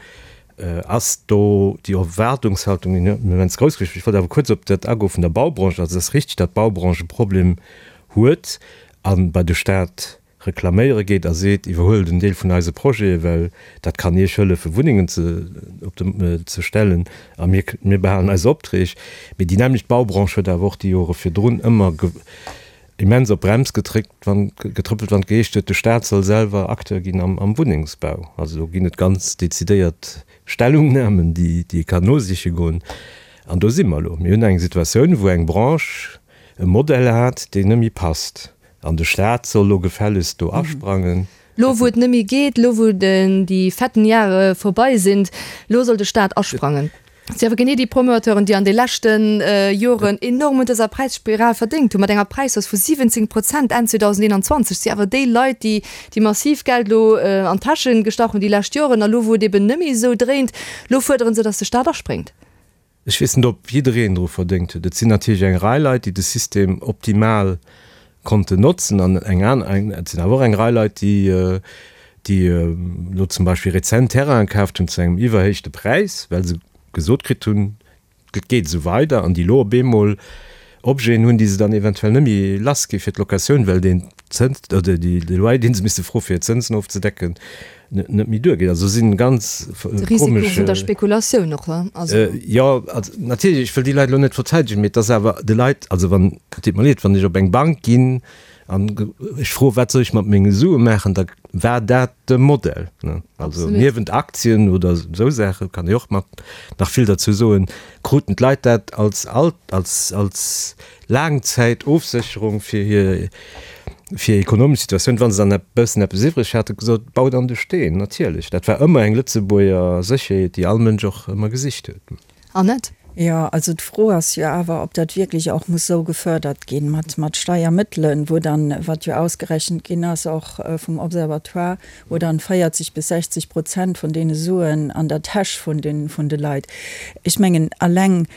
ass do déi Erwaardungshaltung immens grouss gewiescht. Ech wollt awer kuerz op dat agoe vun der Baubranche. Also et ass richtig, datt d'Baubranche e Problem huet a bei de Stat reklaméiere geet a seet, iwwerhuelt en Deel vun eise Projete, well dat kann Iech hëllefen, Wunnengen ze op de ze stellen a mir mir behalen eis Opträg. Mee déi nämmlecht Baubranche huet awer och déi Jore virdrun ëmmer ge immens op d'Brems getréckt, wann getrëppelt, wann et geheescht huet, de Staat soll selwer Acteur ginn am am Wunnengsbau. Also do ginn et ganz dezidéiert Stellungnahmen, déi déi ee kann nosiche goen. An do si mer elo. Mir hunn eng Situatioun, wou eng Branche e Modell hat, deen net méi passt. An de Staat soll lo gefällegst do asprangen. Lo wou et net méi geet, lo wou déi fetten Jahre vorbei sind, lo soll de Staat asprangen. Et si awer genee déi Promoteuren, déi an de leschte Joren enorm un dëser Präisspiral verdéngt hunn, mat enger Präishausse vu 17 Prozent Enn 2021. Et si awer déi Leit, déi déi massiv Geld elo an d'Täsche gestach hunn déi lescht Joren. A lo, wou et eben net méi esou dréint, lo fuerdere se, datt de Staat aspréngt. Ech weess net, ob jiddereen dru verdéngt huet. Et sinn natierlech eng Rei Leit, déi de System optimal konnten notzen an eng aner, et sinn awer och eng Rei Leit, déi déi elo zum Beispill rezent Terrainen kaaft hunn zu engem iwwerhéichte Präis, well se gesot kritt hunn, et geet esou weider, an déi elo op eemol Objeten hunn, déi se dann eventuell net méi lass gi fir d'Locatioun, well deen Zëns oder déi de Loyer, dee se misste froe fir hir Zënsen ofzedecken, net méi duergeet. Also si ganz De Risiko komesch. vun der Spekulatioun och, he? Also. Jo, also natierlech, ech wëll déi Leit elo net verteidegen, mee et ass awer de Leit, also wann, et deet mer leed, wann ech op eng Bank ginn, An ech froe wat soll ech mat menge Sue maachen, da war dat de Modell. Also niewent Aktien oder esou Saache kann ee och mat nach vill derzou soen, kruten d'Leit dat als als als Laangzäitofsécherung fir hir fir ekonomesch Situatioun, wa se dann e bëssen eppes iwwreg haten, gesot, baut an de Steen. Natierlech, dat war ëmmer eng Lëtzebuerger Sécherheet, déi all Mënsch och ëmmer gesicht huet. Annette? Jo, also d'Fro ass jo awer, ob dat wierklech och muss esou gefördert ginn, mat, mat Steiermëttelen, wou dann, wat jo ausgerechent ginn ass, och vum Observatoire, wou dann 40 bis 60 Prozent vun deene Suen an der Täsch vun den, vun de Leit. Ech mengen, alleng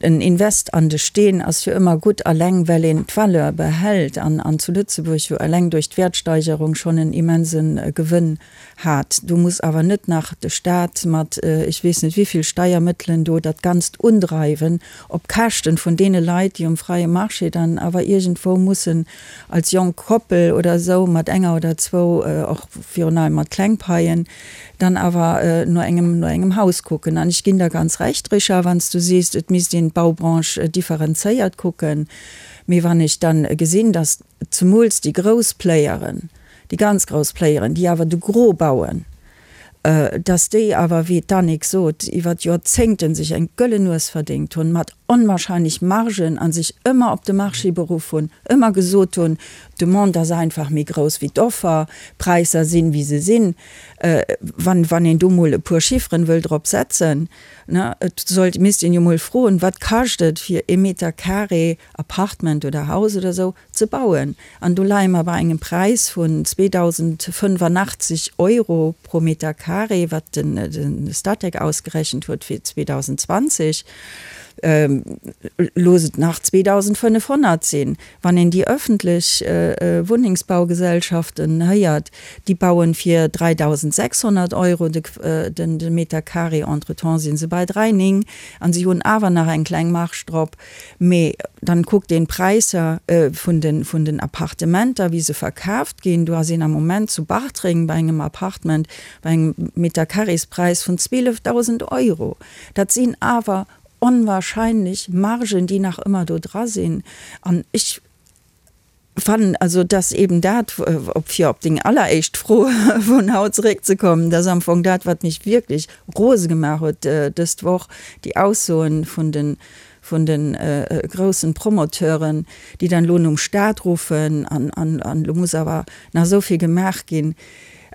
en Invest an de Steen ass jo ëmmer gutt, alleng well een d'Valeur behält an, an zu Lëtzebuerg jo alleng duerch d'Wäertsteigerung schonn en immense Gewënn hat. Do muss awer net nach de Stat mat ech weess net wéivill Steiermëttelen do dat Ganzt undreiwen, op Käschten vun deene Leit, déi um freie Marché dann awer iergendwou mussen als jonk Koppel oder esou mat enger oder zwou, och virun allem mat kleng Paien, dann awer no engem, no engem Haus kucken. An ech ginn der ganz Recht, Richard, wann s du sees, et misst een d'Baubranche differenzéiert kucken. Mee wann ech dann gesinn, dass zemools déi grouss Playeren, déi ganz grouss Playeren, déi awer de Gros bauen, dass déi awer, wéi d'Annick sot, iwwer Joerzéngte sech eng gëllen Nues verdéngt hunn, mat onwahrscheinlech Margen a sech ëmmer op de Marché beruff hunn, ëmmer gesot hunn, d'Demande ass einfach méi grouss wéi d'Offer, d'Präisser sinn, wéi se sinn. Wann, wann een do mol e puer Chifferen wëll drop setzen, ne, et sollt, misst een jo mol froen, wat kascht et fir ee Meter carré Apartment oder Haus oder esou ze bauen. An do leie mer bei engem Präis vun 2.085 Euro pro Meter carré, wat de Statec ausgerechent huet fir 2020. Looss et nach 2.500 sinn. Wann een déi öffentlech Wunnengsbaugesellschaften héiert, déi bauen fir 3.600 Euro de Meter carré, entretemps si se bei 3,9 an si hunn awer nach eng kleng Marge drop. Mee dann kuckt een d'Präisser vun den vun den Appartementer, wéi se verkaaft ginn. Do ass een am Moment zu Bartreng bei engem Appartement bei engem Metercarréspräis vun 12.000 Euro. Dat sinn awer onwahrscheinlech Margen, déi nach ëmmer do dra sinn. An ech fannen also, dass eben dat, op fir op deng alleréischt Fro vun haut zeréckzekommen, dass am Fong dat, wat mech wierklech rose gemaach huet dëst Woch, déi Aussoen vun de vun de groussen Promoteuren, déi dann elo nom Stat ruffen an an an elo muss awer nach esou vill gemaach ginn.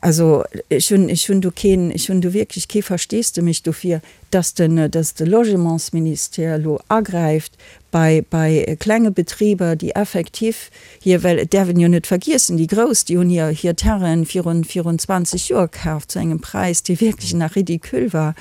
Also ech hunn ech hunn do keen, ech hunn do wierklech kee Versteesdemech dofir, dass den dass de Logementsministère elo agräift bei bei klenge Betriber, déi effektiv hir, well et däerf een jo net vergiessen, déi grouss, déi hunn hir hir Terrainen virun virun 20 Joer kaaft zu engem Präis, dee wierklech nach ridicule war.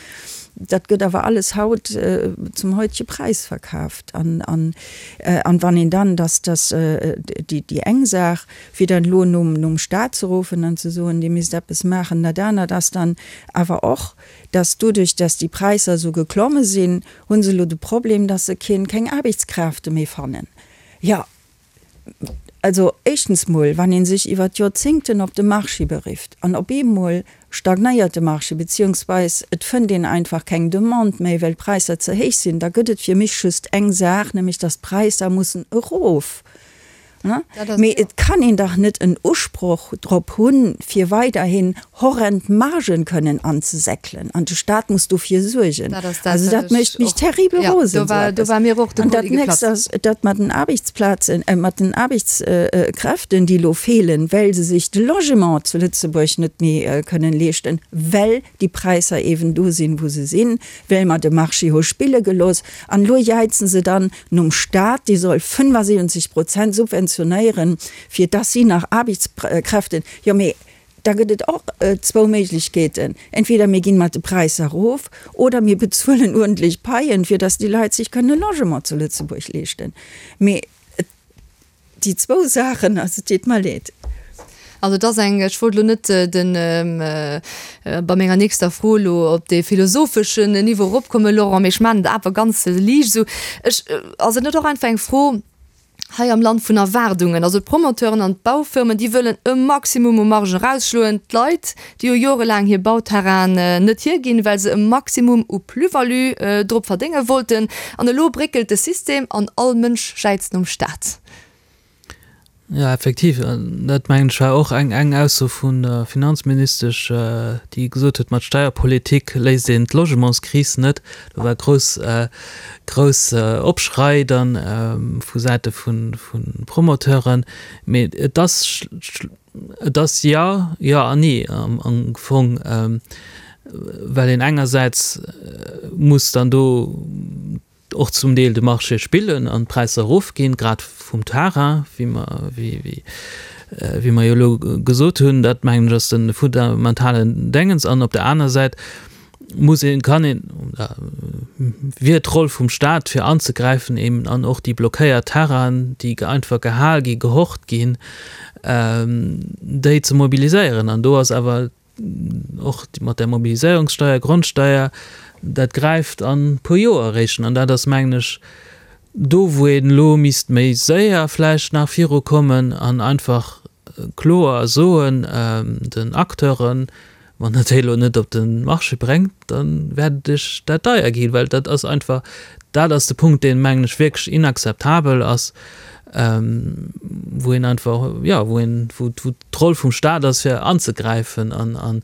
Dat gëtt awer alles haut zum heutege Präis verkaaft. An an an wann een dann, dass dass déi déi eng Saach, fir dann elo nom nom Stat ze ruffen an ze soen, Dir misst eppes maachen, dat anert ass dann awer och, dass doduerch, dass déi Präisser esou geklomme sinn, hu se elo de Problem, dass se keen, keng Aarbechtskräfte méi fannen. Jo, also éischtens mol, wann ee sech iwwer d'Joerzéngten op de Marché berifft an op eemol stagnéiert de Marché, beziehungsweis et fënnt een einfach keng Demande méi, well d'Präisser ze héich sinn, da gëtt et fir mech just eng Saach, nämlech dass d'Präisser mussen erof. Mee et kann een dach net en Usproch drop hunn, fir weiderhin horrend Margen kënnen anzesäckelen. An de Staat muss dofir suergen. Also dat mécht mech terribel rosen, esou eppes. An dat nächst ass, dat mat den Aarbechtsplazen, mat den Aarbechtskräften, déi elo feelen, well se sech de Logement zu Lëtzebuerg net méi kënnen leeschten, well déi Präisser eeben do sinn, wou se sinn, well mer de Marché hu spille gelooss. An elo jäizen se dann nom Staat, dee soll 75 Prozent subventionéieren, fir dass si nach Aarbechtskräften, jo mee da gëtt et och zwou Méiglechkeeten, entweder mir ginn mat de Präisser erof oder mir bezuelen uerdentlech Paien, fir dass déi Leit sech kënnen e Logement zu Lëtzebuerg leeschten. Mee et. Déi zwou Saachen, also et deet mer leed. Also et ass eng, ech wollt elo net den, bei menger nächster Fro elo op dee philosopheschen Niveau eropkommen, Laurent, mee ech maachen et awer ganz liicht esou. Ech, ass et net och einfach eng Fro hei am Land vun Erwaardungen? Also d'Promoteuren an d'Baufirmen, déi wëllen e Maximum u Marge erausschloen. D'Leit, déi hu jorelaang hir Bauterrainen net hierginn, well se e Maximum u Plus-value drop verdénge wollten. An elo bréckelt de System an all Mënsch jäizt nom Staat. Jo, effektiv, dat mengen ech war och eng eng Ausso vun der Finanzministesch, déi gesot huet, mat Steierpolitik léist een d'Logementskris net. Do war grouss grouss Opschrei dann vu Säite vu Promoteuren. Mee et ass Et ass jo, jo an nee am Fong, well een engersäits muss dann do och zum Deel de Marché spillen an d'Präisser erofginn, grad vum Terrain, wéi mer, wéi mer jo elo gesot hunn. Dat mengen ech ass de fundamentalen Déngens. An op der aner Säit muss een, kann een, wier d'Roll vum Staat fir anzegräifen eben an och déi blockéiert Terrainen, déi einfach gehal gi, gehort ginn, déi ze mobiliséieren. An do ass awer och mat där Mobiliséierungssteier, Grondsteier, dat gräift an e puer Joer eréischt. An dat ass, mengen ech, do wou een elo misst méi séier vläicht nach virukommen an einfach kloer soen den Acteuren, Wann Der déi elo net op de Marché bréngt, da wäert et Iech dat deier ginn, well dat ass einfach, dat ass de Punkt, deen, mengen ech, wierklech inakzeptabel ass, wou een einfach, jo, wou een, wou d'Roll vum Stat ass, fir anzegräifen an, an.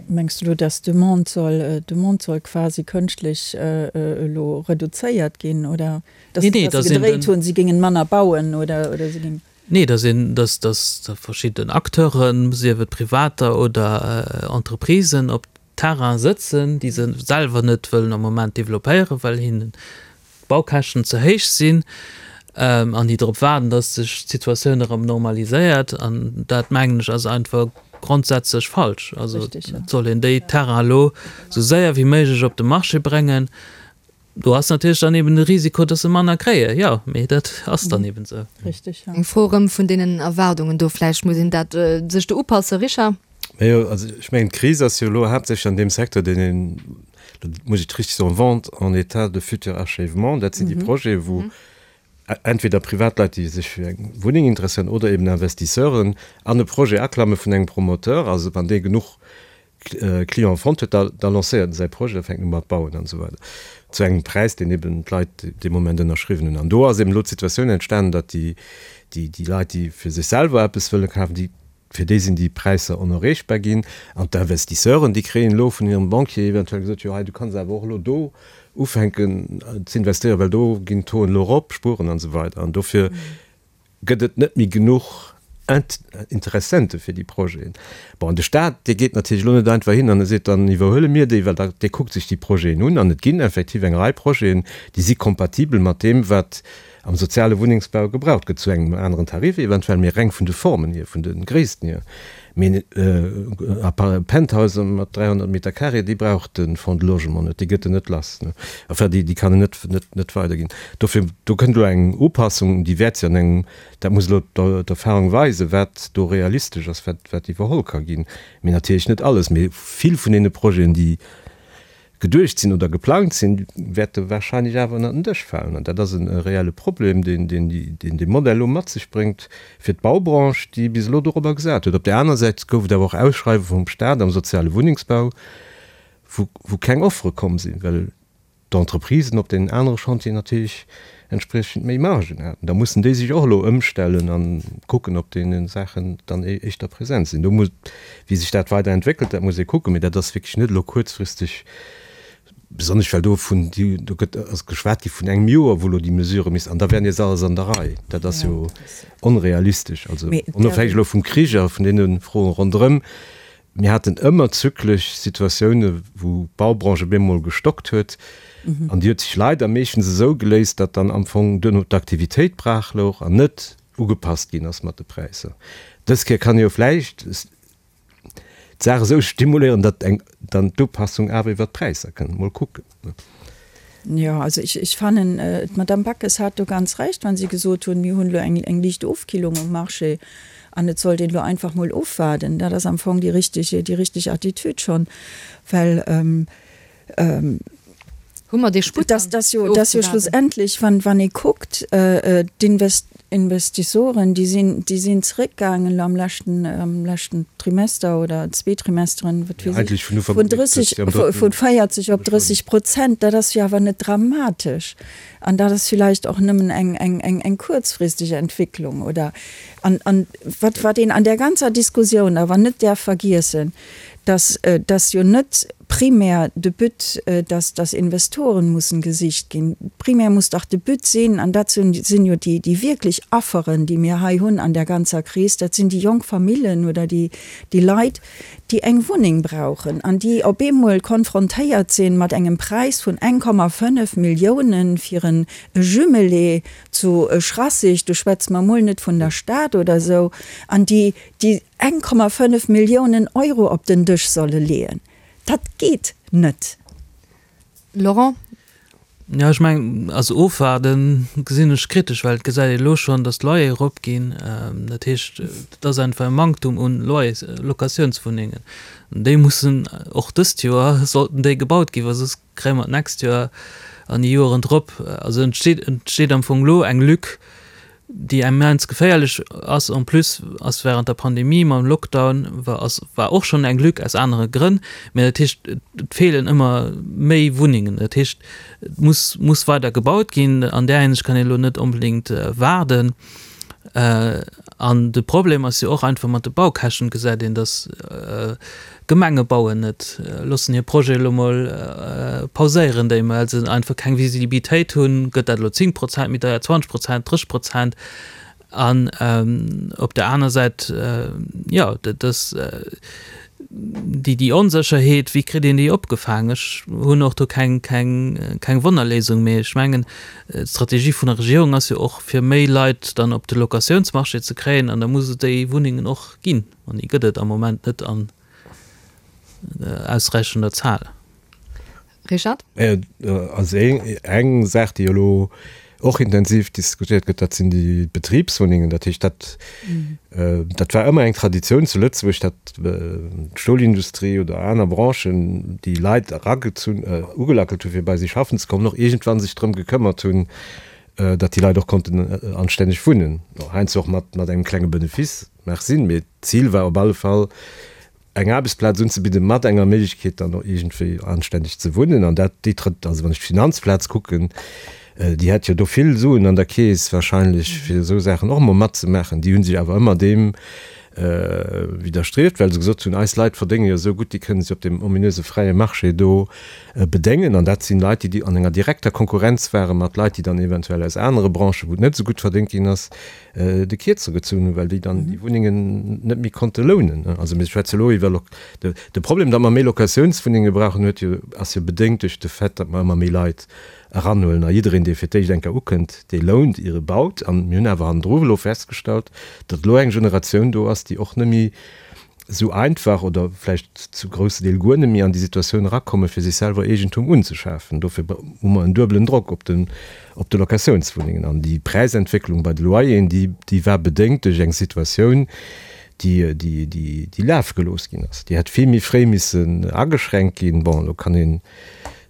Mengs du elo, dass d'Demande soll, d'Demande soll quasi kënschtlech elo reduzéiert ginn, oder dass se gedréit hunn, si géingen manner bauen oder, oder si géingen. Nee, dass een, dass, dass verschidden Acteuren, sief et Privater oder Entreprisen, op Terraine sëtzen, déi se selwer net wëllen am Moment developpéieren, well hinnen d'Baukäschten ze héich sinn, an déi drop waarden, dass sech d'Situatioun erëm normaliséiert. An dat, mengen ech, ass einfach grondsätzlech falsch. Also et soll een déi Terrainen elo esou séier wéi méiglech op de Marché bréngen. Do ass natierlech dann eben de Risiko, dass se manner kréien, jo, mee dat ass dann eben esou. Richtig, ja. Eng Fro erëm vun deenen Erwaardungen do, vläicht muss een dat sech do upassen, Richard? Majo, also ech mengen, d'Kris ass jo elo haaptsächlech an deem Secteur, deen een, do muss ech et richtig soen, Vente en état de futur achèvement, dat sinn déi Projete wou entweder Privatleit, déi sech fir eng Wunneng interesséieren, oder eben Investisseuren an e Projet aklamme vun engem Promoteur, also wann dee genuch Client fonnt huet, da da lancéiert en säi Projet, da fänkt en u mat bauen an esou weider, zu engem Präis, deen eben d'Leit dee Moment ënnerschriwwen hunn. An do ass eben elo d'Situatioun entstanen, datt déi déi déi Leit, déi fir sech selwer eppes wëlle kafen, déi fir déi sinn déi Präisser onerreechbar ginn. An d'Investisseuren, déi kréien elo vun hirem Banquier eventuell gesot, jo hei, du kanns awer och elo do ufänken z'investéieren, well do ginn d'Tauxen elo erop, spueren an esou weider. An dofir gëtt et net méi genuch Interessente fir déi Projeten. Bon, an de Staat, dee geet natierlech elo net einfach hin an e seet, dann iwwerhuele mir déi, well da, dee kuckt sech déi Projeten un an et ginn effektiv eng Rei Projeten, déi si kompatibel mat deem, wat am soziale Wunnengsbau gebraucht gëtt, zu engem aneren Tarif eventuell, mee reng vun de Formen hier, vun de Gréissten hier. Mee Penthousen mat 300 Meter carré, déi brauch de Fonds de Logement net, déi gëtt en net lass. Enfin, déi kann en net, net, net weiderginn. Dofir, do kënnt elo eng Upassung, déi wäert sech an engem, dat muss elo d'Erfahrung weisen, wat do realistesch ass, wat, wat iwwerholl ka ginn. Mee natierlech net alles, mee vill vun deene Projeten, déi geduecht sinn oder geplangt sinn, wäerte wahrscheinlech awer ënnert den Dësch falen. An dat ass e reelle Problem, deen dee Modell elo mat sech bréngt fir d'Baubranche, déi bis elo dorobber gesat huet. Op där aner Säit gouf et awer och Ausschreiwe vum Stat am soziale Wunnengsbau, wou keng Offere komm sinn, well. d'Entreprisen op deenen anere Chantieren natierlech entspriechend méi Margen haten. Da mussen déi sech och elo ëmstellen a kucken, ob deene Saachen dann éischter present sinn. Do muss, wéi sech dat weider entwéckelt, dat muss ee kucken, mee dat ass wierklech net elo kuerzfristeg, besonnesch well do vun, do gëtt, ass geschwat gi vun engem Joer, wou elo déi Mesure misst, an da wär nees alles an der Rei. Dat ass jo onrealistesch. Also onofhängeg elo vum Krich a vun deene Froen ronderëm, Mir haten ëmmer zyklesch Situatioune wou d'Baubranche op eemol gestockt huet an déi huet sech leider meeschtens esou geléist, datt dann am Fong duerno d'Aktivitéit brach louch an net ugepasst ginn ass mat de Präisser. Dës Kéier kann ee jo vläicht d'Saach esou stimuléieren, datt eng dann d'Upassung awer iwwert d'Präisser kënnt. Mol kucken. Jo, also ech, ech fannen, d'Madame Backes hat do ganz Recht, wa si gesot hunn, mir hunn elo eng, eng liicht Ofkillung um Marché an et sollt een elo einfach mol ofwaarden. Dat ass am Fong déi richtig, déi richtig Attitüd schonn, well Hu mer dee Sputt dann, dass jo, dass jo schlussendlech, wann, wann ee kuckt, d'Invest, Investissoren, déi sinn, déi sinn zeréckgaangen elo am leschten, am leschten Trimester oder zwee Trimesteren, wat weess ech, vun 30, vun 40 op 30 Prozent. Dat ass jo awer net dramatesch. An dat ass villäicht och nëmmen eng, eng, eng, eng kuerzfristeg Entwécklung, oder? An, an wat, wat een an där ganzer Diskussioun awer net däerf vergiessen, dass, dass jo net primär de But, dass, dass Investoren mussen gesicht ginn. Primär muss dach de But sinn, an dat sinn, sinn jo déi, déi wierklech Afferen, déi mir hei hunn an där ganzer Kris, dat sinn déi jonk Famillen oder déi, déi Leit, déi eng Wunneng brauchen an déi op eemol konfrontéiert sinn mat engem Präis vun 1,5 Milliounen fir en Jumelé zu Schrassig, do schwätze mer emol net vun der Stad oder esou, an déi, déi 1,5 Milliounen Euro op den Dësch solle leeën. Dat geet net. Laurent? Jo, ech mengen, also ofwaarde gesinn ech kritesch, well et gesäit ee elo schonn, datt d'Loyere eropginn. Dat heescht, et ass einfach e Manktum un Loyers, Locatiounswunnengen. An déi mussen och dëst Joer sollten déi gebaut ginn, well soss kréie mer d'nächst Joer an déi Joeren drop, also entsteet entsteet am Fong elo eng Lück, déi immens geféierlech ass. En plus ass während der Pandemie mam Lockdown war ass war och schonn eng Lück aus anere Grënn, mä dat heescht et feelen ëmmer méi Wunnengen. Dat heescht et muss muss weider gebaut ginn. An där Hinsicht kann een elo net onbedéngt waarden. An de Problem ass jo och einfach mat de Baukäschten, gesäit een, datt Gemenge bauen net, loossen hir Projete elo mol pauséieren, déi well se einfach keng Visibilitéit hunn, gëtt dat elo 10 Prozent méi deier, 20 Prozent, 30 Prozent? An op der aner Säit, jo, dat ass déi déi Onsécherheet, wéi kritt een déi opgefaang? Ech hunn och do keng keng keng Wonnerléisung, mee ech mengen, d'Strategie vun der Regierung ass jo och, fir méi Leit dann op de Locatiounsmarché ze kréien, an da muss et déi Wunnengen och ginn. An déi gëtt et am Moment net an ausräichender Zahl. Richard? Also eng Saach, déi elo och intensiv diskutéiert gëtt, dat sinn déi Betribswunnengen. Dat heescht, dat, dat war ëmmer eng Traditioun zu Lëtzebuerg, datt d'Stolindustrie oder aner Branchen, déi Leit eragezunn, ugelackelt hu fir bei si schaffen ze kommen, och iergendwann sech drëm gekëmmert hunn, datt déi Leit och konnten anstänneg wunnen, heiansdo och mat engem klenge Benefice. Mag sinn, mee d'Zil war op alle Fall eng Aarbechtsplaz unzebidden, mat enger Méiglechkeet dann och iergendwéi anstänneg ze wunnen. An dat, déi trëtt, also wann ech d'Finanzplaz kucken, déi hätt jo do vill Suen an der Keess wahrscheinlech, fir esou Saachen och emol matzemaachen. Déi hu sech awer ëmmer deem widderstrieft, well se gesot hunn, eis Leit verdénge jo esou gutt, déi kënne sech op deem ominöse fräie Marché do bedéngen. An dat sinn Leit, déi an enger direkter Konkurrenz ware mat Leit, déi dann eventuell aus anere Branchen, wou et net esou gutt verdéngt ginn ass, de Kierzer gezunn hunn, well déi dann déi Wunnengen net méi konnte lounen. Also mir schwätze elo iwwer de Problem, datt mer méi Locatiounswunnenge brauchen, huet jo, ass jo bedéngt duerch de Fait, datt mer ëmmer méi Leit eranhuelen. A jiddereen, dee fir d'éischt eng Kéier ukënnt, dee lount, ier e baut. An mir hunn awer hannendru elo festgestallt, datt elo eng Generatioun do ass, déi och net méi esou einfach oder vläicht zu grousse Deel guer net méi an déi Situatioun erakommen, fir sech selwer Eegentum unzeschafen. Dofir hu mer en duebelen Drock op den, op de Locatiounswunnengen. An déi Präisentwécklung bei de Loyeren, déi, déi war bedéngt duerch eng Situatioun, déi, déi, déi, déi lafe gelooss ginn ass. Déi hätt vill méi fréi missen ageschränkt ginn. Bon, elo kann een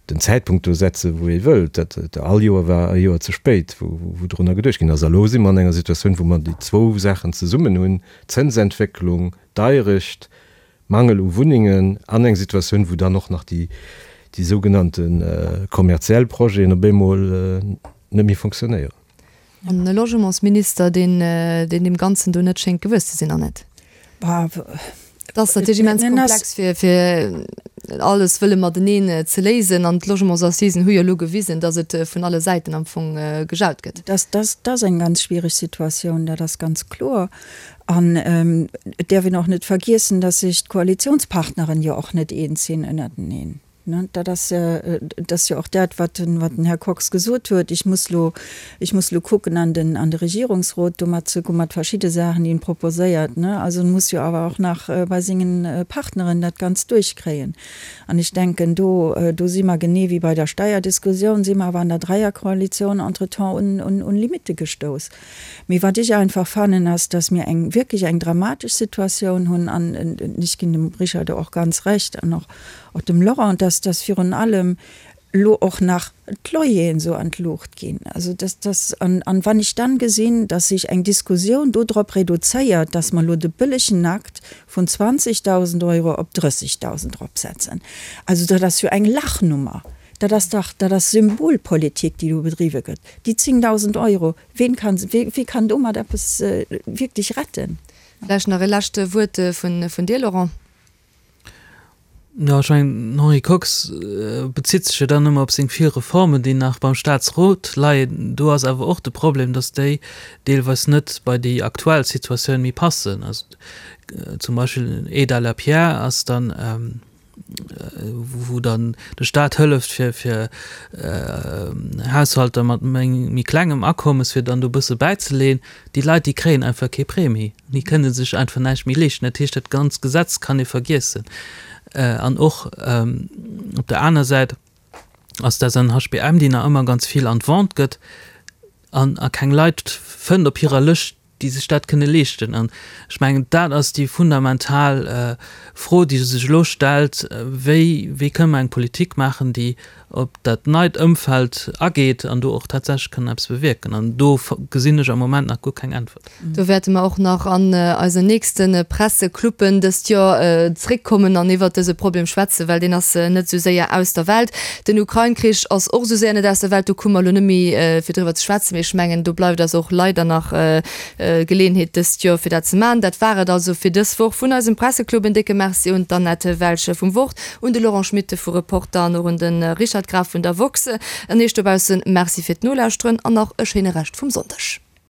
den Zäitpunkt do setzen, wou ee wëllt. Dat, all Joer war e Joer ze spéit, wou, wou drunner geduecht ginn ass. A lo si mer an enger Situatioun, wou mer déi zwou Saachen zesummen hunn, Zënsentwécklung, Deierecht, Mangel u Wunnengen an eng Situatioun, wou dann och nach déi. déi sougenannte kommerziell Projeten op eemol net méi fonctionnéieren. An e Logementsminister, deen deem Ganzen do net schéngt gewuess ze sinn, Annette. Et ass natierlech immens komplex, fir, fir alles wëlle mateneen ze léisen. An d'Logementsassisen hu jo elo gewisen, datt et vun alle Säiten am Fong gejaut gëtt. Dat ass eng ganz schwiereg Situatioun, dat ass ganz kloer. An et däerf een och net vergiessen, datt sech d'Koalitionspartneren jo och net eens sinn ënnerteneen. Dat ass, dat ass jo och dat, wat den, wat den Här Kox gesot huet, Ich muss lo, ech muss lo kucken an den, an de Regierungsrot domat ze goen, mat verschidde Saachen, déi en proposéiert. Also en muss jo awer och nach bei sengen Partneren dat Ganzt duerchkréien. An ech denken, do, do si mer genee wéi bei der Steierdiskussioun, si mer awer an der Dräierkoalitioun entretemps un, un, un Limitte gestouss. Mee wat ech einfach fannen, ass, dass mir eng wierklech eng dramatesch Situatioun hunn an ech ginn dem Richard do och ganz Recht an och och dem Laurent, dass dass virun allem elo och nach d'Loyeren esou an d'Luucht ginn. Also dass dass an an wann ech dann gesinn, dass sech eng Diskussioun do drop reduzéiert, dass mer elo de bëllegen Akt vun 20.000 Euro op 30.000 eropsetzen, also dat ass jo eng Lachnummer. Dat ass dach, dat ass Symbolpolitik, déi do bedriwwe gëtt. Déi 10.000 Euro, ween kann, wee kann domat eppes wierklech retten? Vläicht nach e lescht Wuert vun dir, Laurent. Jo, ech mengen, den Henri Kox bezitt sech jo dann ëmmer op seng vill Reformen, déi nach beim Staatsrot leien. Do ass awer och de Problem, datt déi deelweis net bei déi aktuell Situatioun méi passen. Also zum Beispill Aide à la pierre ass dann, wou dann de Staat hëlleft fir fir Haushalter mat méi klengem Akommes fir dann do bësse bäizeleeën, déi Leit déi kréien einfach kee Prêt méi, déi kënne sech einfach näischt méi leeschten. Dat heescht dat ganz Gesetz kann ee vergiessen. An och op der aner Säit ass d'SNHBM, déi nach ëmmer ganz vill an d'Vente gëtt an a keng Leit fënnt op hirer Lëscht, déi sech dat kënne leeschten. An ech mengen, dat ass déi fundamental Fro, déi sech elo stellt, Wéi, wéi kënne mer eng Politik maachen, déi op dat neit Ëmfeld ageet an do och tatsächlech kënn eppes bewierken? An do gesinn ech am Moment nach guer keng Äntwert. Do wäerte mer och nach an eisen nächste Pressecluppen dëst Joer zréckkommen an iwwert dëse Problem schwätzen, well deen ass net esou séier aus der Welt. Den Ukrain-Krich ass och esou séier net aus der Welt, do komme mer elo net méi fir driwwer ze schwätzen, mee ech mengen, do bleift eis och leider nach Geleeënheet dëst Joer fir dat ze maachen. Dat war et also fir dës Woch vun eisem Presseclub. En décke Merci un d'Annette Welsch vum Wort, un de Laurent Schmit vu Reporter an och un de Richard Graf vun der woxx. An Iech dobaussen Merci fir d'Nolauschteren an nach e schéine Rescht vum Sonndeg.